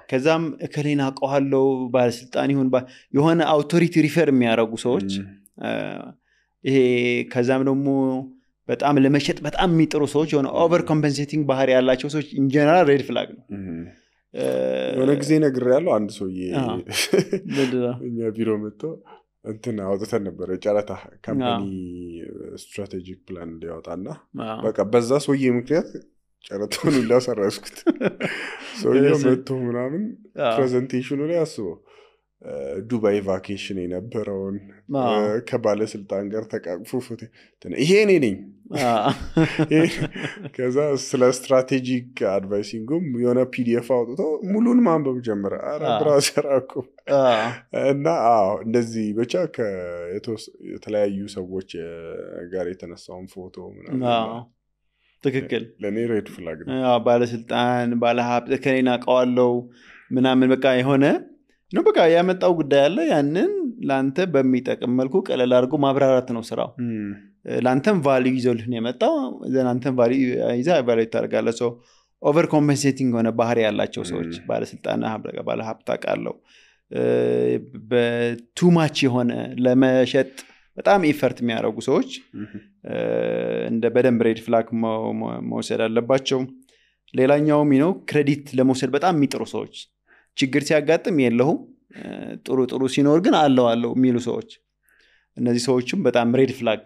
ከዛም እከሌና አውቀዋለሁ ባለስልጣን ይሁን የሆነ አውቶሪቲ ሪፈር የሚያደርጉ ሰዎች ይሄ ከዛም ደግሞ በጣም ለመሸጥ በጣም የሚጥሩ ሰዎች የሆነ ኦቨር ኮምፐንሴቲንግ ባህሪ ያላቸው ሰዎች ኢን ጀነራል ሬድ ፍላግ ነው የሆነ ጊዜ ነግሬያለሁ አንድ ሰውዬ እኛ ቢሮ መጥቶ እንትን አውጥተን ነበር ጨረታ ካምፓኒ ስትራቴጂክ ፕላን እንዲያወጣና በቃ በዛ ሰውዬ ምክንያት ጨረታውን ሁላ ሰራስኩት ሰውዬው መጥቶ ምናምን ፕሬዘንቴሽኑ ላይ አስበው ዱባይ ቫኬሽን የነበረውን ከባለስልጣን ጋር ተቃቅፎ ፎቶ ይሄ እኔ ነኝ ከዛ ስለ ስትራቴጂክ አድቫይሲንግም የሆነ ፒዲኤፍ አውጥቶ ሙሉን ማንበብ ጀመረ ብራውዘር አቆ እና እንደዚህ ብቻ የተለያዩ ሰዎች ጋር የተነሳውን ፎቶ ምናምን ትክክል ለኔ ሬድ ፍላግ ነው ባለስልጣን ባለሀብት ከኔና አውቀዋለሁ ምናምን በቃ የሆነ ነው በቃ ያመጣው ጉዳይ አለ ያንን ላንተ በሚጠቅም መልኩ ቀለል አድርጎ ማብራራት ነው ስራው ላንተም ቫልዩ ይዘውልህ ነው የመጣው ላንተም ቫልዩ ይዛ ቫልዩ ታደርጋለህ ሶ ኦቨር ኮምፐንሴቲንግ ሆነ ባህሪ ያላቸው ሰዎች ባለስልጣና ባለሀብት አቃለው በቱ ማች የሆነ ለመሸጥ በጣም ኢፈርት የሚያደርጉ ሰዎች እንደ በደንብ ሬድ ፍላግ መውሰድ አለባቸው ሌላኛው ክሬዲት ለመውሰድ በጣም የሚጥሩ ሰዎች ችግር ሲያጋጥም የለውም ጥሩ ሲኖር ግን አለው የሚሉ ሰዎች እነዚህ ሰዎችም በጣም ሬድ ፍላግ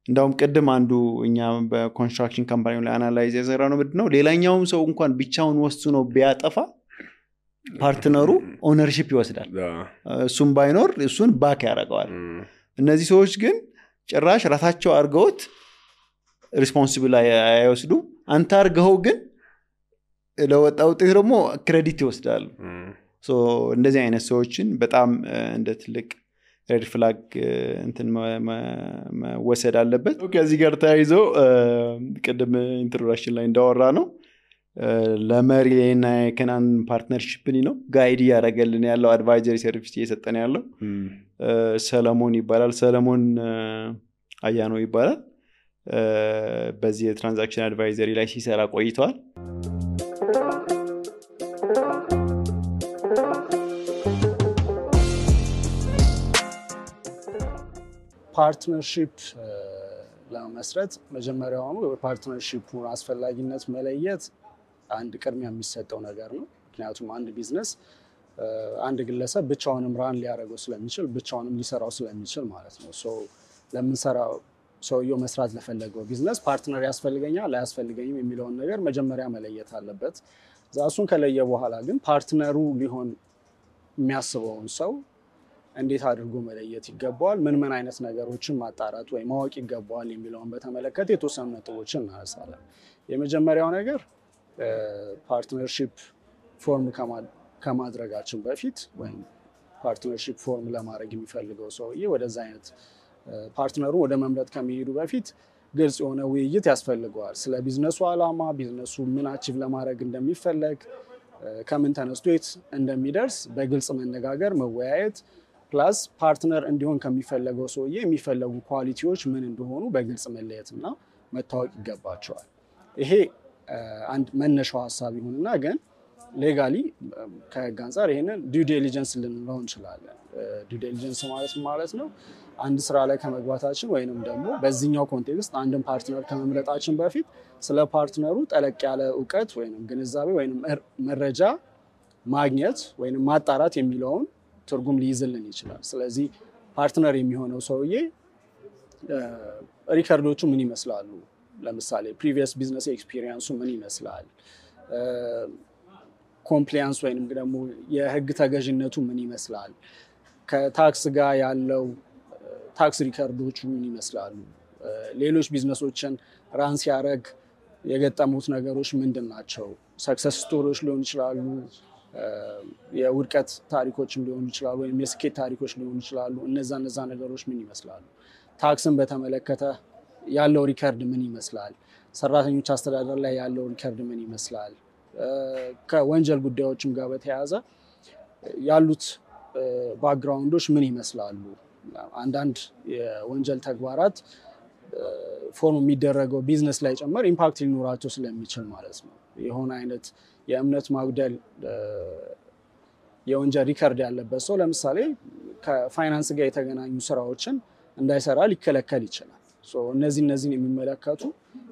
እንደውም ቀደም አንዱ እኛ በኮንስትራክሽን ካምፓኒው ላይ አናላይዝ ያሰራው ነው ምንድነው ሌላኛውም ሰው እንኳን ብቻውን ወስኖ ቢያጠፋ ፓርትነሩ ኦነርሺፕ ይወስዳል እሱም ባይኖር እሱን ባክ ያደርገዋል እነዚህ ሰዎች ግን ጭራሽ ራሳቸው አርገውት ሪስፖንሲብል አይወስዱ አንተ አርገው ግን ለወጣው ጥሩ ደግሞ ክሬዲት ይወስዳል ሶ እንደዚህ አይነት ሰዎችን በጣም እንደ ትልቅ ሬድ ፍላግ እንትን መወሰድ አለበት ከዚህ ጋር ተያይዞ ቀደም ኢንትሮዳክሽን ላይ እንዳወራ ነው ለመሪና የከናን ፓርትነርሺፕ ነው ጋይድ ያደርገልን ያለው አድቫይዘሪ ሰርቪስ እየሰጠን ያለው ሰለሞን ይባላል ሰለሞን አያኖ ይባላል በዚህ የትራንዛክሽን አድቫይዘሪ ላይ ሲሰራ ቆይተዋል። ፓርትነርሺፕ ለመስረት መጀመሪያውኑ የፓርትነርሺፑን አስፈላጊነት መለየት አንድ ቅድሚያ የሚሰጠው ነገር ነው። ምክንያቱም አንድ ቢዝነስ አንድ ግለሰብ ብቻውንም ራን ሊያደርገው ስለሚችል ብቻውንም ሊሰራው ስለሚችል ማለት ነው። ለምንሰራው ሰውየው መስራት ለፈለገው ቢዝነስ ፓርትነር ያስፈልገኛል አያስፈልገኝም የሚለውን ነገር መጀመሪያ መለየት አለበት። እሱን ከለየ በኋላ ግን ፓርትነሩ ሊሆን የሚያስበውን ሰው እንዴት አድርጎ መለየት ይገባዋል፣ ምን አይነት ነገሮችን ማጣራት ወይ ማወቅ ይገባዋል የሚለውን በተመለከተ የተወሰኑ ነጥቦችን እናነሳለን። የመጀመሪያው ነገር ፓርትነርሺፕ ፎርም ከማድረጋችን በፊት ወይም ፓርትነርሺፕ ፎርም ለማድረግ የሚፈልገው ሰውዬ ወደዛ አይነት ፓርትነሩ ወደ መምረጥ ከመሄዱ በፊት ግልጽ የሆነ ውይይት ያስፈልገዋል። ስለ ቢዝነሱ ዓላማ፣ ቢዝነሱ ምን አቺቭ ለማድረግ እንደሚፈለግ፣ ከምን ተነስቶ የት እንደሚደርስ በግልጽ መነጋገር፣ መወያየት ፕላስ ፓርትነር እንዲሆን ከሚፈለገው ሰውዬ የሚፈለጉ ኳሊቲዎች ምን እንደሆኑ በግልጽ መለየትና መታወቅ ይገባቸዋል። ይሄ አንድ መነሻው ሀሳብ ይሁንና ግን ሌጋሊ ከህግ አንጻር ይሄንን ዲው ዲሊጀንስ ልንለው እንችላለን። ዲው ዲሊጀንስ ማለት ነው አንድ ስራ ላይ ከመግባታችን ወይንም ደግሞ በዚህኛው ኮንቴክስት አንድን ፓርትነር ከመምረጣችን በፊት ስለ ፓርትነሩ ጠለቅ ያለ እውቀት ወይንም ግንዛቤ ወይንም መረጃ ማግኘት ወይንም ማጣራት የሚለውን ትርጉም ሊይዝልን ይችላል። ስለዚህ ፓርትነር የሚሆነው ሰውዬ ሪከርዶቹ ምን ይመስላሉ፣ ለምሳሌ ፕሪቪየስ ቢዝነስ ኤክስፒሪየንሱ ምን ይመስላል፣ ኮምፕላያንስ ወይንም ደግሞ የህግ ተገዥነቱ ምን ይመስላል፣ ከታክስ ጋር ያለው ታክስ ሪከርዶቹ ምን ይመስላሉ፣ ሌሎች ቢዝነሶችን ራን ሲያደርግ የገጠሙት ነገሮች ምንድን ናቸው፣ ሰክሰስ ስቶሪዎች ሊሆኑ ይችላሉ፣ የውድቀት ታሪኮችም ሊሆኑ ይችላሉ፣ ወይም የስኬት ታሪኮች ሊሆኑ ይችላሉ። እነዛ ነገሮች ምን ይመስላሉ፣ ታክስን በተመለከተ ያለው ሪከርድ ምን ይመስላል፣ ሰራተኞች አስተዳደር ላይ ያለው ሪከርድ ምን ይመስላል፣ ከወንጀል ጉዳዮችም ጋር በተያያዘ ያሉት ባክግራውንዶች ምን ይመስላሉ። አንዳንድ የወንጀል ተግባራት ፎርም የሚደረገው ቢዝነስ ላይ ጨመር ኢምፓክት ሊኖራቸው ስለሚችል ማለት ነው። የሆነ አይነት የእምነት ማጉደል የወንጀል ሪከርድ ያለበት ሰው ለምሳሌ ከፋይናንስ ጋር የተገናኙ ስራዎችን እንዳይሰራ ሊከለከል ይችላል። እነዚህን የሚመለከቱ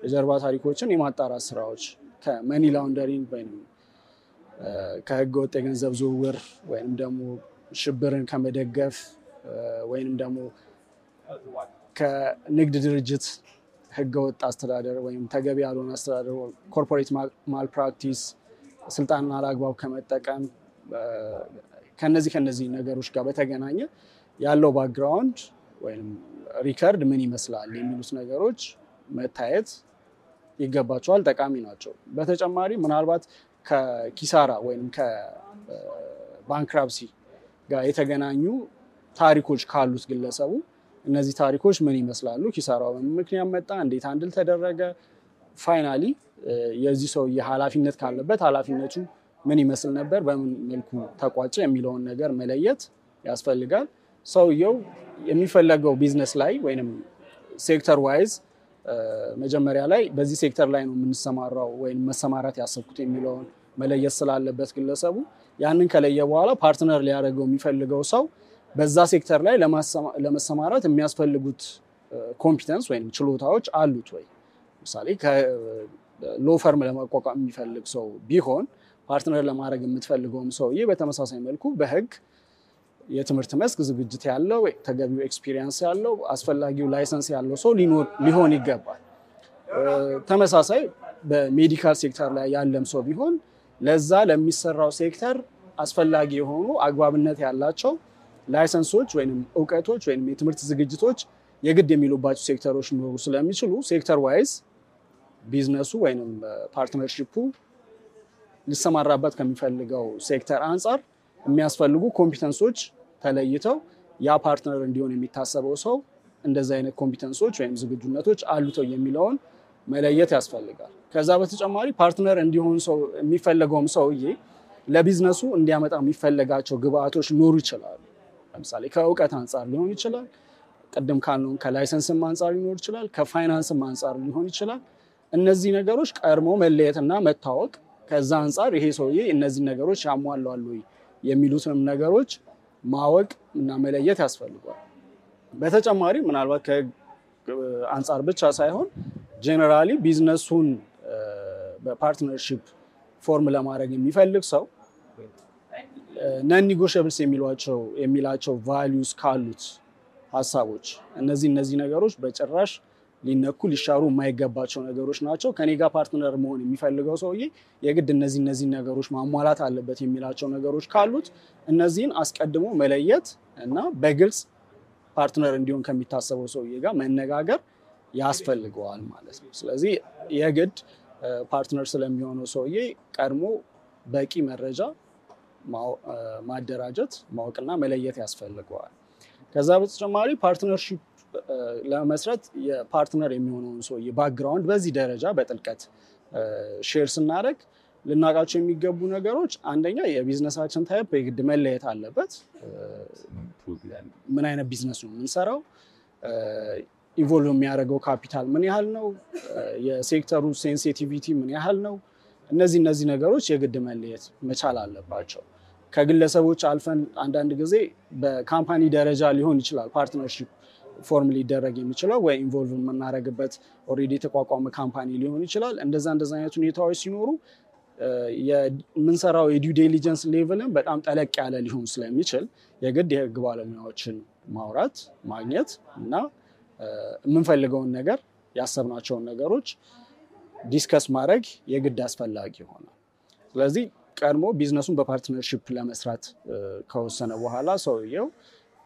የጀርባ ታሪኮችን የማጣራት ስራዎች ከመኒ ላውንደሪንግ ወይም ከህገወጥ የገንዘብ ዝውውር ወይም ደግሞ ሽብርን ከመደገፍ ወይም ደግሞ ከንግድ ድርጅት ህገወጥ አስተዳደር ወይም ተገቢ ያልሆነ አስተዳደር ኮርፖሬት ማልፕራክቲስ ስልጣንን አላግባብ ከመጠቀም ከነዚህ ነገሮች ጋር በተገናኘ ያለው ባክግራውንድ ወይም ሪከርድ ምን ይመስላል የሚሉት ነገሮች መታየት ይገባቸዋል፣ ጠቃሚ ናቸው። በተጨማሪ ምናልባት ከኪሳራ ወይም ከባንክራፕሲ ጋር የተገናኙ ታሪኮች ካሉት ግለሰቡ እነዚህ ታሪኮች ምን ይመስላሉ፣ ኪሳራው በምን ምክንያት መጣ፣ እንዴት አንድል ተደረገ፣ ፋይናሊ የዚህ ሰውዬ ኃላፊነት ካለበት ኃላፊነቱ ምን ይመስል ነበር፣ በምን መልኩ ተቋጨ የሚለውን ነገር መለየት ያስፈልጋል። ሰውየው የሚፈለገው ቢዝነስ ላይ ወይም ሴክተር ዋይዝ መጀመሪያ ላይ በዚህ ሴክተር ላይ ነው የምንሰማራው ወይም መሰማራት ያሰብኩት የሚለውን መለየት ስላለበት ግለሰቡ ያንን ከለየ በኋላ ፓርትነር ሊያደርገው የሚፈልገው ሰው በዛ ሴክተር ላይ ለመሰማራት የሚያስፈልጉት ኮምፒተንስ ወይም ችሎታዎች አሉት ወይ። ለምሳሌ ሎ ፈርም ለማቋቋም የሚፈልግ ሰው ቢሆን ፓርትነር ለማድረግ የምትፈልገውም ሰውዬ በተመሳሳይ መልኩ በህግ የትምህርት መስክ ዝግጅት ያለው ተገቢው ኤክስፒሪየንስ ያለው አስፈላጊው ላይሰንስ ያለው ሰው ሊሆን ይገባል። ተመሳሳይ በሜዲካል ሴክተር ላይ ያለም ሰው ቢሆን ለዛ ለሚሰራው ሴክተር አስፈላጊ የሆኑ አግባብነት ያላቸው ላይሰንሶች ወይም እውቀቶች ወይም የትምህርት ዝግጅቶች የግድ የሚሉባቸው ሴክተሮች ሊኖሩ ስለሚችሉ ሴክተር ዋይዝ ቢዝነሱ ወይም ፓርትነርሺፑ ሊሰማራበት ከሚፈልገው ሴክተር አንጻር የሚያስፈልጉ ኮምፒተንሶች ተለይተው ያ ፓርትነር እንዲሆን የሚታሰበው ሰው እንደዚህ አይነት ኮምፒተንሶች ወይም ዝግጁነቶች አሉተው የሚለውን መለየት ያስፈልጋል። ከዛ በተጨማሪ ፓርትነር እንዲሆን ሰው የሚፈለገውም ሰውዬ ለቢዝነሱ እንዲያመጣ የሚፈለጋቸው ግብአቶች ሊኖሩ ይችላሉ። ለምሳሌ ከእውቀት አንጻር ሊሆን ይችላል፣ ቅድም ካልነው ከላይሰንስም አንፃር ሊኖር ይችላል፣ ከፋይናንስም አንፃር ሊሆን ይችላል። እነዚህ ነገሮች ቀድሞ መለየትና መታወቅ ከዛ አንፃር ይሄ ሰውዬ እነዚህ ነገሮች ያሟላሉ የሚሉትንም ነገሮች ማወቅ እና መለየት ያስፈልጋል። በተጨማሪ ምናልባት ከአንፃር ብቻ ሳይሆን ጀነራሊ ቢዝነሱን በፓርትነርሺፕ ፎርም ለማድረግ የሚፈልግ ሰው ነን ኒጎሽየብልስ የሚላቸው ቫልዩስ ካሉት ሀሳቦች እነዚህ ነገሮች በጭራሽ ሊነኩ ሊሻሩ የማይገባቸው ነገሮች ናቸው። ከኔ ጋር ፓርትነር መሆን የሚፈልገው ሰውዬ የግድ እነዚህ ነገሮች ማሟላት አለበት የሚላቸው ነገሮች ካሉት እነዚህን አስቀድሞ መለየት እና በግልጽ ፓርትነር እንዲሆን ከሚታሰበው ሰውዬ ጋር መነጋገር ያስፈልገዋል ማለት ነው። ስለዚህ የግድ ፓርትነር ስለሚሆነው ሰውዬ ቀድሞ በቂ መረጃ ማደራጀት ማወቅና መለየት ያስፈልገዋል። ከዛ በተጨማሪ ፓርትነርሺፕ ለመስረት የፓርትነር የሚሆነውን ሰውዬ ባክግራውንድ በዚህ ደረጃ በጥልቀት ሼር ስናደርግ ልናውቃቸው የሚገቡ ነገሮች አንደኛ የቢዝነሳችን ታይፕ የግድ መለየት አለበት። ምን አይነት ቢዝነስ ነው የምንሰራው? ኢንቮልቭ የሚያደርገው ካፒታል ምን ያህል ነው? የሴክተሩ ሴንሲቲቪቲ ምን ያህል ነው? እነዚህ ነገሮች የግድ መለየት መቻል አለባቸው። ከግለሰቦች አልፈን አንዳንድ ጊዜ በካምፓኒ ደረጃ ሊሆን ይችላል ፓርትነርሺፕ ፎርም ሊደረግ የሚችለው ወይ ኢንቮልቭ የምናደርግበት ኦልሬዲ የተቋቋመ ካምፓኒ ሊሆን ይችላል። እንደዛ አይነት ሁኔታዎች ሲኖሩ የምንሰራው የዲው ዲሊጀንስ ሌቭልን በጣም ጠለቅ ያለ ሊሆን ስለሚችል የግድ የህግ ባለሙያዎችን ማውራት ማግኘት እና የምንፈልገውን ነገር ያሰብናቸውን ነገሮች ዲስከስ ማድረግ የግድ አስፈላጊ ይሆናል። ስለዚህ ቀድሞ ቢዝነሱን በፓርትነርሺፕ ለመስራት ከወሰነ በኋላ ሰውየው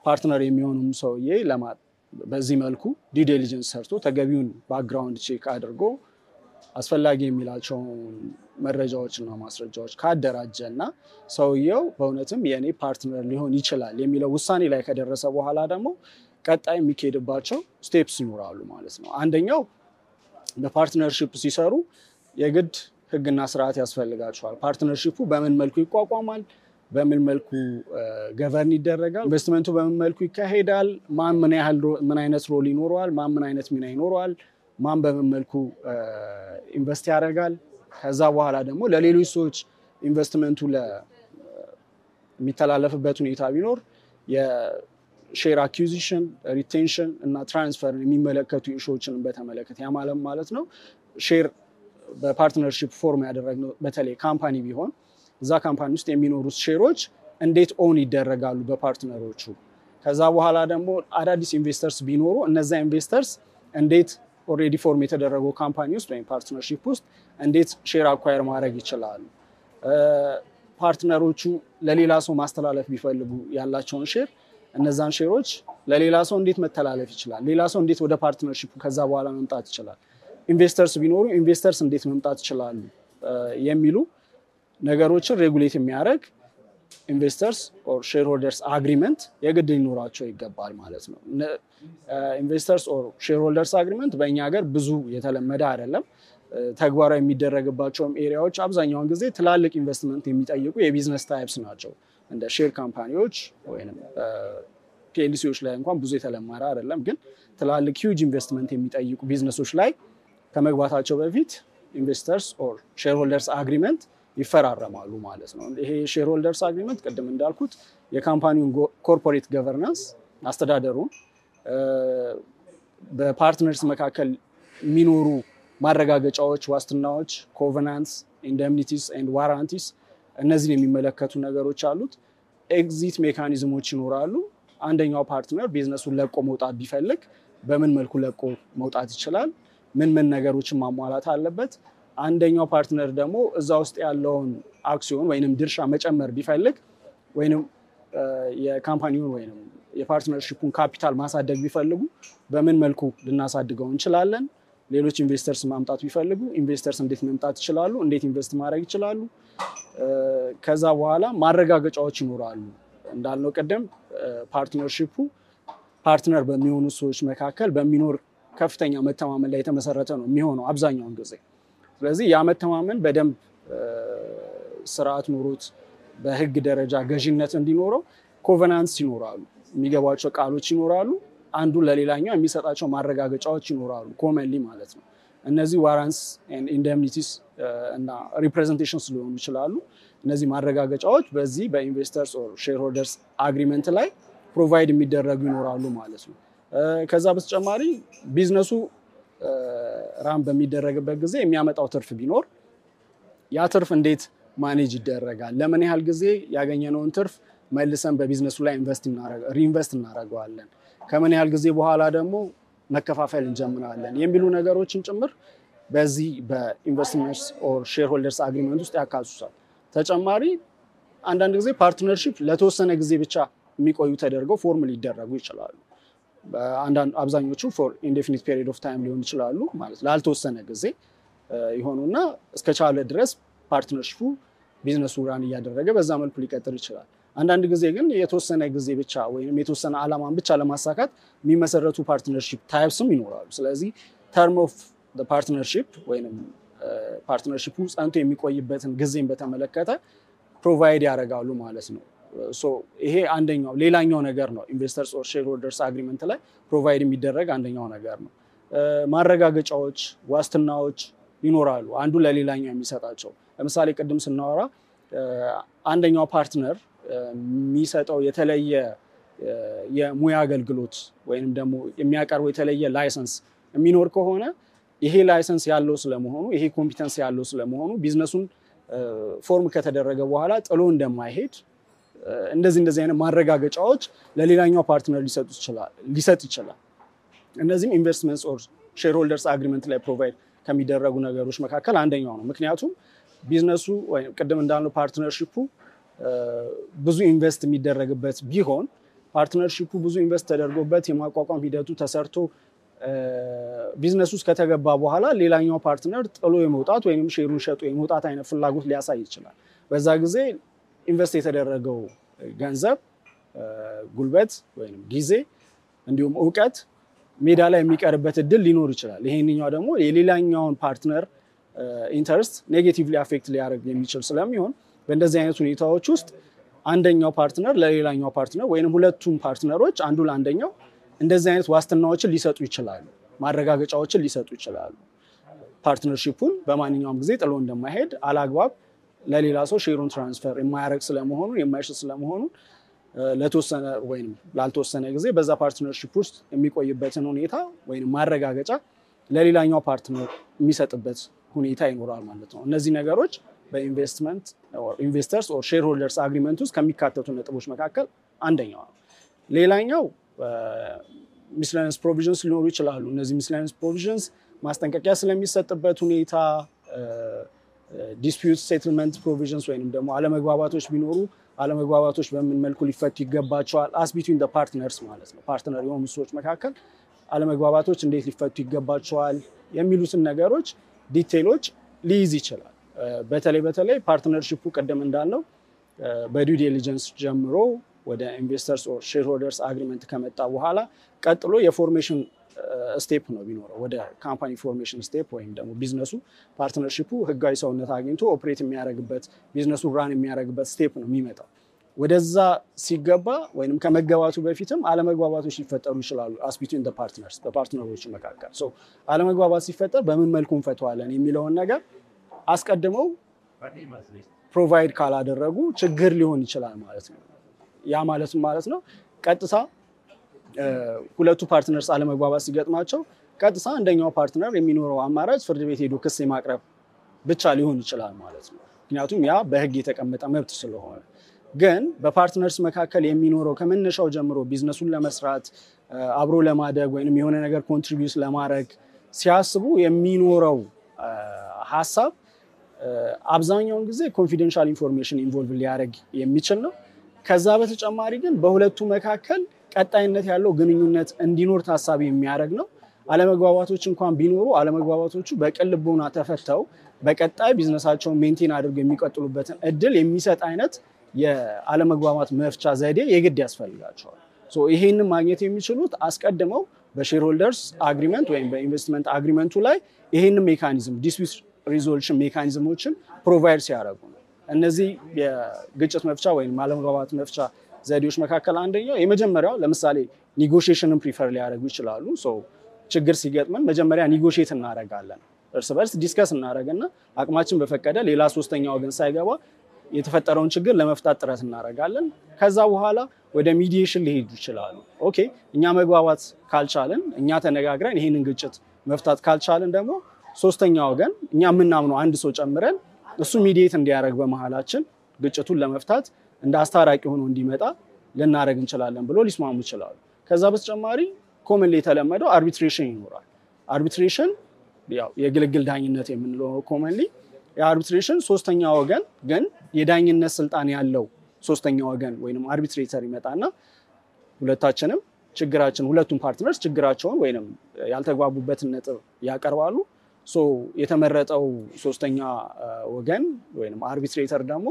ፓርትነር የሚሆኑም ሰውዬ በዚህ መልኩ ዲው ዲሊጀንስ ሰርቶ ተገቢውን ባክግራውንድ ቼክ አድርጎ አስፈላጊ የሚላቸውን መረጃዎችና ማስረጃዎች ካደራጀና ሰውየው በእውነትም የኔ ፓርትነር ሊሆን ይችላል የሚለው ውሳኔ ላይ ከደረሰ በኋላ ደግሞ ቀጣይ የሚካሄድባቸው ስቴፕስ ይኖራሉ ማለት ነው። አንደኛው በፓርትነርሺፕ ሲሰሩ የግድ ህግና ስርዓት ያስፈልጋቸዋል። ፓርትነርሺፑ በምን መልኩ ይቋቋማል? በምን መልኩ ገቨርን ይደረጋል? ኢንቨስትመንቱ በምን መልኩ ይካሄዳል? ማን ምን አይነት ሮል ይኖረዋል? ማን ምን አይነት ሚና ይኖረዋል? ማን በምን መልኩ ኢንቨስት ያደርጋል? ከዛ በኋላ ደግሞ ለሌሎች ሰዎች ኢንቨስትመንቱ የሚተላለፍበት ሁኔታ ቢኖር የሼር አኩዚሽን፣ ሪቴንሽን እና ትራንስፈር የሚመለከቱ ኢሹዎችን በተመለከተ ያማለም ማለት ነው። ሼር በፓርትነርሺፕ ፎርም ያደረግነው በተለይ ካምፓኒ ቢሆን እዛ ካምፓኒ ውስጥ የሚኖሩት ሼሮች እንዴት ኦን ይደረጋሉ በፓርትነሮቹ። ከዛ በኋላ ደግሞ አዳዲስ ኢንቨስተርስ ቢኖሩ እነዛ ኢንቨስተርስ እንዴት ኦልሬዲ ፎርም የተደረገው ካምፓኒ ውስጥ ወይም ፓርትነርሺፕ ውስጥ እንዴት ሼር አኳየር ማድረግ ይችላሉ። ፓርትነሮቹ ለሌላ ሰው ማስተላለፍ ቢፈልጉ ያላቸውን ሼር እነዛን ሼሮች ለሌላ ሰው እንዴት መተላለፍ ይችላል? ሌላ ሰው እንዴት ወደ ፓርትነርሺፕ ከዛ በኋላ መምጣት ይችላል? ኢንቨስተርስ ቢኖሩ ኢንቨስተርስ እንዴት መምጣት ይችላሉ? የሚሉ ነገሮችን ሬጉሌት የሚያደርግ ኢንቨስተርስ ኦር ሼርሆልደርስ አግሪመንት የግድ ሊኖራቸው ይገባል ማለት ነው። ኢንቨስተርስ ኦር ሼርሆልደርስ አግሪመንት በእኛ ሀገር ብዙ የተለመደ አይደለም። ተግባራዊ የሚደረግባቸውም ኤሪያዎች አብዛኛውን ጊዜ ትላልቅ ኢንቨስትመንት የሚጠይቁ የቢዝነስ ታይፕስ ናቸው። እንደ ሼር ካምፓኒዎች ወይም ፒኤልሲዎች ላይ እንኳን ብዙ የተለመደ አይደለም። ግን ትላልቅ ሂውጅ ኢንቨስትመንት የሚጠይቁ ቢዝነሶች ላይ ከመግባታቸው በፊት ኢንቨስተርስ ኦር ሼርሆልደርስ አግሪመንት ይፈራረማሉ ማለት ነው። ይሄ ሼርሆልደርስ አግሪመንት ቅድም እንዳልኩት የካምፓኒውን ኮርፖሬት ገቨርናንስ አስተዳደሩን፣ በፓርትነርስ መካከል የሚኖሩ ማረጋገጫዎች፣ ዋስትናዎች፣ ኮቨናንትስ፣ ኢንደምኒቲስ ኤንድ ዋራንቲስ እነዚህን የሚመለከቱ ነገሮች አሉት። ኤግዚት ሜካኒዝሞች ይኖራሉ። አንደኛው ፓርትነር ቢዝነሱን ለቆ መውጣት ቢፈልግ በምን መልኩ ለቆ መውጣት ይችላል? ምን ነገሮችን ማሟላት አለበት? አንደኛው ፓርትነር ደግሞ እዛ ውስጥ ያለውን አክሲዮን ወይንም ድርሻ መጨመር ቢፈልግ ወይንም የካምፓኒውን ወይንም የፓርትነርሺፑን ካፒታል ማሳደግ ቢፈልጉ በምን መልኩ ልናሳድገው እንችላለን? ሌሎች ኢንቨስተርስ ማምጣት ቢፈልጉ ኢንቨስተርስ እንዴት መምጣት ይችላሉ? እንዴት ኢንቨስት ማድረግ ይችላሉ? ከዛ በኋላ ማረጋገጫዎች ይኖራሉ። እንዳልነው ቀደም ፓርትነርሺፑ ፓርትነር በሚሆኑ ሰዎች መካከል በሚኖር ከፍተኛ መተማመን ላይ የተመሰረተ ነው የሚሆነው አብዛኛውን ጊዜ። ስለዚህ ያ መተማመን በደንብ ስርዓት ኖሮት በህግ ደረጃ ገዥነት እንዲኖረው ኮቨናንትስ ይኖራሉ፣ የሚገባቸው ቃሎች ይኖራሉ። አንዱ ለሌላኛው የሚሰጣቸው ማረጋገጫዎች ይኖራሉ ኮመንሊ ማለት ነው። እነዚህ ዋራንትስ ኤንድ ኢንደምኒቲስ እና ሪፕሬዘንቴሽንስ ሊሆኑ ይችላሉ። እነዚህ ማረጋገጫዎች በዚህ በኢንቨስተርስ ኦር ሼርሆልደርስ አግሪመንት ላይ ፕሮቫይድ የሚደረጉ ይኖራሉ ማለት ነው። ከዛ በተጨማሪ ቢዝነሱ ራም በሚደረግበት ጊዜ የሚያመጣው ትርፍ ቢኖር ያ ትርፍ እንዴት ማኔጅ ይደረጋል፣ ለምን ያህል ጊዜ ያገኘነውን ትርፍ መልሰን በቢዝነሱ ላይ ሪኢንቨስት እናደርገዋለን፣ ከምን ያህል ጊዜ በኋላ ደግሞ መከፋፈል እንጀምራለን የሚሉ ነገሮችን ጭምር በዚህ በኢንቨስትመንትስ ኦር ሼርሆልደርስ አግሪመንት ውስጥ ያካትታል። ተጨማሪ አንዳንድ ጊዜ ፓርትነርሺፕ ለተወሰነ ጊዜ ብቻ የሚቆዩ ተደርገው ፎርም ሊደረጉ ይችላሉ። አብዛኞቹ ፎር ኢንዴፊኒት ፔሪድ ኦፍ ታይም ሊሆን ይችላሉ ማለት ላልተወሰነ ጊዜ ይሆኑና እስከቻለ ድረስ ፓርትነርሺፑ ቢዝነሱ ራን እያደረገ በዛ መልኩ ሊቀጥል ይችላል። አንዳንድ ጊዜ ግን የተወሰነ ጊዜ ብቻ ወይም የተወሰነ ዓላማን ብቻ ለማሳካት የሚመሰረቱ ፓርትነርሺፕ ታይፕስም ይኖራሉ። ስለዚህ ተርም ኦፍ ዘ ፓርትነርሺፕ ወይም ፓርትነርሺፑ ጸንቶ የሚቆይበትን ጊዜን በተመለከተ ፕሮቫይድ ያደርጋሉ ማለት ነው። ይሄ አንደኛው ሌላኛው ነገር ነው። ኢንቨስተርስ ኦር ሼርሆልደርስ አግሪመንት ላይ ፕሮቫይድ የሚደረግ አንደኛው ነገር ነው። ማረጋገጫዎች፣ ዋስትናዎች ይኖራሉ አንዱ ለሌላኛው የሚሰጣቸው። ለምሳሌ ቅድም ስናወራ አንደኛው ፓርትነር የሚሰጠው የተለየ የሙያ አገልግሎት ወይንም ደግሞ የሚያቀርበው የተለየ ላይሰንስ የሚኖር ከሆነ ይሄ ላይሰንስ ያለው ስለመሆኑ ይሄ ኮምፒተንስ ያለው ስለመሆኑ ቢዝነሱን ፎርም ከተደረገ በኋላ ጥሎ እንደማይሄድ እንደዚህ አይነት ማረጋገጫዎች ለሌላኛው ፓርትነር ሊሰጥ ይችላል። እነዚህም ኢንቨስትመንትስ ኦር ሼርሆልደርስ አግሪመንት ላይ ፕሮቫይድ ከሚደረጉ ነገሮች መካከል አንደኛው ነው። ምክንያቱም ቢዝነሱ ወይ ቅድም እንዳልነው ፓርትነርሺፑ ብዙ ኢንቨስት የሚደረግበት ቢሆን ፓርትነርሺፑ ብዙ ኢንቨስት ተደርጎበት የማቋቋም ሂደቱ ተሰርቶ ቢዝነስ ውስጥ ከተገባ በኋላ ሌላኛው ፓርትነር ጥሎ የመውጣት ወይም ሼሩን ሸጦ የመውጣት አይነት ፍላጎት ሊያሳይ ይችላል። በዛ ጊዜ ኢንቨስት የተደረገው ገንዘብ፣ ጉልበት ወይም ጊዜ እንዲሁም እውቀት ሜዳ ላይ የሚቀርበት እድል ሊኖር ይችላል። ይሄንኛው ደግሞ የሌላኛውን ፓርትነር ኢንተረስት ኔጌቲቭሊ አፌክት ሊያደርግ የሚችል ስለሚሆን በእንደዚህ አይነት ሁኔታዎች ውስጥ አንደኛው ፓርትነር ለሌላኛው ፓርትነር ወይም ሁለቱም ፓርትነሮች አንዱ ለአንደኛው እንደዚህ አይነት ዋስትናዎችን ሊሰጡ ይችላሉ፣ ማረጋገጫዎችን ሊሰጡ ይችላሉ። ፓርትነርሺፑን በማንኛውም ጊዜ ጥሎ እንደማይሄድ አላግባብ ለሌላ ሰው ሼሩን ትራንስፈር የማያደርግ ስለመሆኑ የማይሽጥ ስለመሆኑ ለተወሰነ ወይም ላልተወሰነ ጊዜ በዛ ፓርትነርሺፕ ውስጥ የሚቆይበትን ሁኔታ ወይም ማረጋገጫ ለሌላኛው ፓርትነር የሚሰጥበት ሁኔታ ይኖራል ማለት ነው። እነዚህ ነገሮች በኢንቨስትመንት ኦር ኢንቨስተርስ ኦር ሼርሆልደርስ አግሪመንት ውስጥ ከሚካተቱ ነጥቦች መካከል አንደኛው ነው። ሌላኛው ሚስሌኒየስ ፕሮቪዥንስ ሊኖሩ ይችላሉ። እነዚህ ሚስሌኒየስ ፕሮቪዥንስ ማስጠንቀቂያ ስለሚሰጥበት ሁኔታ፣ ዲስፒዩት ሴትልመንት ፕሮቪዥንስ ወይንም ደግሞ አለመግባባቶች ቢኖሩ አለመግባባቶች በምን መልኩ ሊፈቱ ይገባቸዋል፣ አስ ቢትዊን ዘ ፓርትነርስ ማለት ነው። ፓርትነር የሆኑ ሰዎች መካከል አለመግባባቶች እንዴት ሊፈቱ ይገባቸዋል የሚሉትን ነገሮች ዲቴይሎች ሊይዝ ይችላል። በተለይ ፓርትነርሺፑ ቀደም እንዳልነው በዲው ዲሊጀንስ ጀምሮ ወደ ኢንቨስተርስ ኦር ሼርሆልደርስ አግሪመንት ከመጣ በኋላ ቀጥሎ የፎርሜሽን ስቴፕ ነው ቢኖረው ወደ ካምፓኒ ፎርሜሽን ስቴፕ ወይም ደግሞ ቢዝነሱ ፓርትነርሺፑ ህጋዊ ሰውነት አግኝቶ ኦፕሬት የሚያደርግበት ቢዝነሱ ራን የሚያደርግበት ስቴፕ ነው የሚመጣው። ወደዛ ሲገባ ወይንም ከመገባቱ በፊትም አለመግባባቶች ሊፈጠሩ ይችላሉ አስ ቢትዊን ዘ ፓርትነርስ በፓርትነሮች መካከል። ሶ አለመግባባት ሲፈጠር በምን መልኩ እንፈተዋለን የሚለውን ነገር አስቀድመው ፕሮቫይድ ካላደረጉ ችግር ሊሆን ይችላል ማለት ነው። ያ ማለት ነው ቀጥታ ሁለቱ ፓርትነርስ አለመግባባት ሲገጥማቸው ቀጥታ አንደኛው ፓርትነር የሚኖረው አማራጭ ፍርድ ቤት ሄዶ ክስ የማቅረብ ብቻ ሊሆን ይችላል ማለት ነው። ምክንያቱም ያ በህግ የተቀመጠ መብት ስለሆነ። ግን በፓርትነርስ መካከል የሚኖረው ከመነሻው ጀምሮ ቢዝነሱን ለመስራት አብሮ ለማደግ ወይንም የሆነ ነገር ኮንትሪቢዩት ለማድረግ ሲያስቡ የሚኖረው ሐሳብ አብዛኛውን ጊዜ ኮንፊደንሻል ኢንፎርሜሽን ኢንቮልቭ ሊያደርግ የሚችል ነው። ከዛ በተጨማሪ ግን በሁለቱ መካከል ቀጣይነት ያለው ግንኙነት እንዲኖር ታሳቢ የሚያደርግ ነው። አለመግባባቶች እንኳን ቢኖሩ አለመግባባቶቹ በቅን ልቦና ተፈተው በቀጣይ ቢዝነሳቸውን ሜንቴን አድርገው የሚቀጥሉበትን እድል የሚሰጥ አይነት የአለመግባባት መፍቻ ዘዴ የግድ ያስፈልጋቸዋል። ይሄንን ማግኘት የሚችሉት አስቀድመው በሼርሆልደርስ አግሪመንት ወይም በኢንቨስትመንት አግሪመንቱ ላይ ይሄንን ሜካኒዝም ዲስፒዩት ሪዞሉሽን ሜካኒዝሞችን ፕሮቫይድ ሲያደርጉ ነው። እነዚህ የግጭት መፍቻ ወይም አለመግባባት መፍቻ ዘዴዎች መካከል አንደኛው የመጀመሪያው ለምሳሌ ኔጎሺዬሽንን ፕሪፈር ሊያደርጉ ይችላሉ። ችግር ሲገጥመን መጀመሪያ ኔጎሺዬት እናደርጋለን። እርስ በርስ ዲስከስ እናደርግና አቅማችን በፈቀደ ሌላ ሶስተኛ ወገን ሳይገባ የተፈጠረውን ችግር ለመፍታት ጥረት እናደርጋለን። ከዛ በኋላ ወደ ሚዲዬሽን ሊሄዱ ይችላሉ። ኦኬ እኛ መግባባት ካልቻልን እኛ ተነጋግረን ይሄንን ግጭት መፍታት ካልቻልን ደግሞ ሶስተኛ ወገን እኛ የምናምነው አንድ ሰው ጨምረን እሱ ሚዲዬት እንዲያደርግ በመሃላችን ግጭቱን ለመፍታት እንደ አስታራቂ ሆኖ እንዲመጣ ልናደርግ እንችላለን ብሎ ሊስማሙ ይችላሉ። ከዛ በተጨማሪ ኮመንሊ የተለመደው አርቢትሬሽን ይኖራል። አርቢትሬሽን ያው የግልግል ዳኝነት የምንለው ኮመንሊ የአርቢትሬሽን ሶስተኛ ወገን ግን የዳኝነት ስልጣን ያለው ሶስተኛ ወገን ወይንም አርቢትሬተር ይመጣና ሁለታችንም ችግራችን ሁለቱም ፓርትነርስ ችግራቸውን ወይንም ያልተግባቡበትን ነጥብ ያቀርባሉ። የተመረጠው ሶስተኛ ወገን ወይንም አርቢትሬተር ደግሞ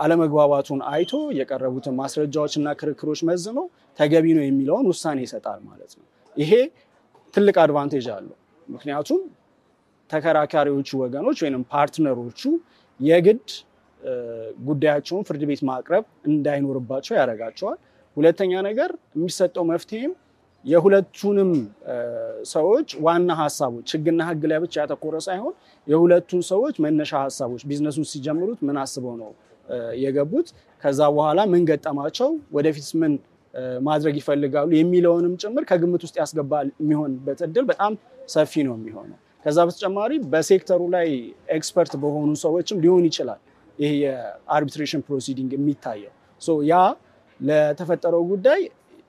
አለመግባባቱን አይቶ የቀረቡትን ማስረጃዎችና ክርክሮች መዝኖ ተገቢ ነው የሚለውን ውሳኔ ይሰጣል ማለት ነው። ይሄ ትልቅ አድቫንቴጅ አለው። ምክንያቱም ተከራካሪዎቹ ወገኖች ወይንም ፓርትነሮቹ የግድ ጉዳያቸውን ፍርድ ቤት ማቅረብ እንዳይኖርባቸው ያደርጋቸዋል። ሁለተኛ ነገር የሚሰጠው መፍትሄም የሁለቱንም ሰዎች ዋና ሀሳቦች ህግና ህግ ላይ ብቻ ያተኮረ ሳይሆን የሁለቱን ሰዎች መነሻ ሀሳቦች ቢዝነሱን ሲጀምሩት ምን አስበው ነው የገቡት፣ ከዛ በኋላ ምን ገጠማቸው፣ ወደፊት ምን ማድረግ ይፈልጋሉ የሚለውንም ጭምር ከግምት ውስጥ ያስገባል የሚሆንበት እድል በጣም ሰፊ ነው የሚሆነው። ከዛ በተጨማሪ በሴክተሩ ላይ ኤክስፐርት በሆኑ ሰዎችም ሊሆን ይችላል ይሄ የአርቢትሬሽን ፕሮሲዲንግ የሚታየው። ያ ለተፈጠረው ጉዳይ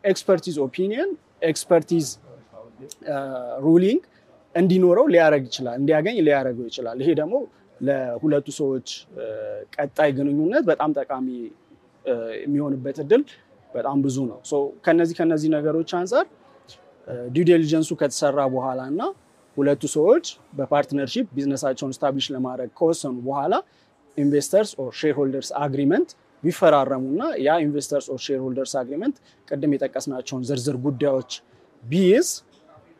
ኤክስፐርቲዝ ኦፒኒየን ኤክስፐርቲዝ ሩሊንግ እንዲኖረው ሊያደርግ ይችላል፣ እንዲያገኝ ሊያደርገው ይችላል። ይሄ ደግሞ ለሁለቱ ሰዎች ቀጣይ ግንኙነት በጣም ጠቃሚ የሚሆንበት እድል በጣም ብዙ ነው። ከነዚህ ነገሮች አንፃር ዲው ዲሊጀንሱ ከተሰራ በኋላ እና ሁለቱ ሰዎች በፓርትነርሺፕ ቢዝነሳቸውን ስታብሊሽ ለማድረግ ከወሰኑ በኋላ ኢንቨስተርስ ኦር ሼርሆልደርስ አግሪመንት ቢፈራረሙና ያ ኢንቨስተርስ ኦር ሼርሆልደርስ አግሪመንት ቅድም የጠቀስናቸውን ዝርዝር ጉዳዮች ቢይዝ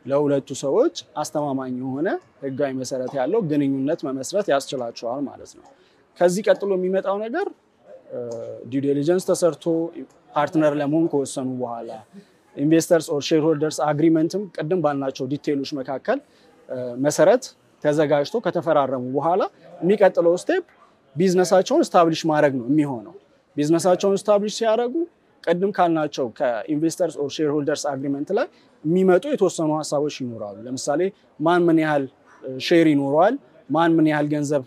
ለሁለቱ ሰዎች አስተማማኝ የሆነ ህጋዊ መሰረት ያለው ግንኙነት መመስረት ያስችላቸዋል ማለት ነው። ከዚህ ቀጥሎ የሚመጣው ነገር ዲው ዲሊጀንስ ተሰርቶ ፓርትነር ለመሆን ከወሰኑ በኋላ ኢንቨስተርስ ኦር ሼርሆልደርስ አግሪመንትም ቅድም ባልናቸው ዲቴይሎች መካከል መሰረት ተዘጋጅቶ ከተፈራረሙ በኋላ የሚቀጥለው ስቴፕ ቢዝነሳቸውን ስታብሊሽ ማድረግ ነው የሚሆነው። ቢዝነሳቸውን ስታብሊሽ ሲያደርጉ ቅድም ካልናቸው ከኢንቨስተርስ ኦር ሼርሆልደርስ አግሪመንት ላይ የሚመጡ የተወሰኑ ሀሳቦች ይኖራሉ። ለምሳሌ ማን ምን ያህል ሼር ይኖረዋል፣ ማን ምን ያህል ገንዘብ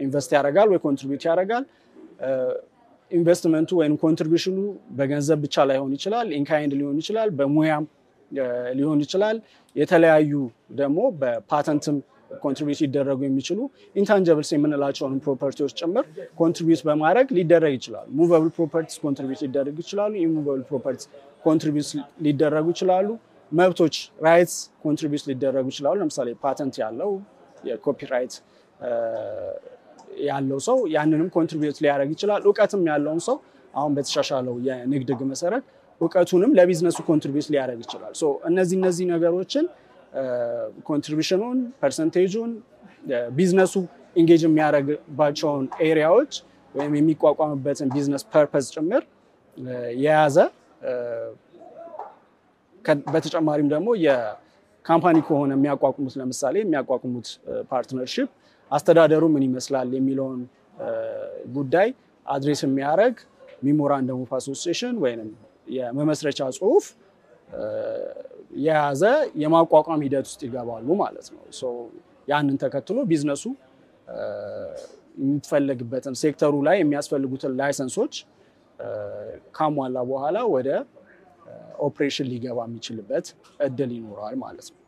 ኢንቨስት ያደርጋል ወይ ኮንትሪቢዩት ያደርጋል፣ ኢንቨስትመንቱ ወይም ኮንትሪቢዩሽኑ በገንዘብ ብቻ ላይሆን ይችላል፣ ኢንካይንድ ሊሆን ይችላል፣ በሙያም ሊሆን ይችላል። የተለያዩ ደግሞ በፓተንትም ኮንትሪቢዩት ሊደረጉ የሚችሉ ኢንታንጀብልስ የምንላቸውን ፕሮፐርቲዎች ጭምር ኮንትሪቢዩት በማድረግ ሊደረግ ይችላል። ሙቨብል ፕሮፐርቲስ ኮንትሪቢዩት ሊደረጉ ይችላሉ። ኢሙቨብል ፕሮፐርቲስ ኮንትሪቢዩት ሊደረጉ ይችላሉ። መብቶች ራይትስ ኮንትሪቢዩት ሊደረጉ ይችላሉ። ለምሳሌ ፓተንት ያለው የኮፒራይት ያለው ሰው ያንንም ኮንትሪቢዩት ሊያደርግ ይችላል። እውቀትም ያለውን ሰው አሁን በተሻሻለው የንግድ ህግ መሰረት እውቀቱንም ለቢዝነሱ ኮንትሪቢዩት ሊያደርግ ይችላል። እነዚህ ነገሮችን ኮንትሪቢዩሽኑን፣ ፐርሰንቴጁን፣ ቢዝነሱ ኢንጌጅ የሚያደርግባቸውን ኤሪያዎች ወይም የሚቋቋምበትን ቢዝነስ ፐርፐዝ ጭምር የያዘ በተጨማሪም ደግሞ የካምፓኒ ከሆነ የሚያቋቁሙት ለምሳሌ የሚያቋቁሙት ፓርትነርሺፕ አስተዳደሩ ምን ይመስላል የሚለውን ጉዳይ አድሬስ የሚያደርግ ሜሞራንደም ኦፍ አሶሲዬሽን ወይም የመመስረቻ ጽሁፍ የያዘ የማቋቋም ሂደት ውስጥ ይገባሉ ማለት ነው። ያንን ተከትሎ ቢዝነሱ የሚፈልግበትን ሴክተሩ ላይ የሚያስፈልጉትን ላይሰንሶች ካሟላ በኋላ ወደ ኦፕሬሽን ሊገባ የሚችልበት እድል ይኖራል ማለት ነው።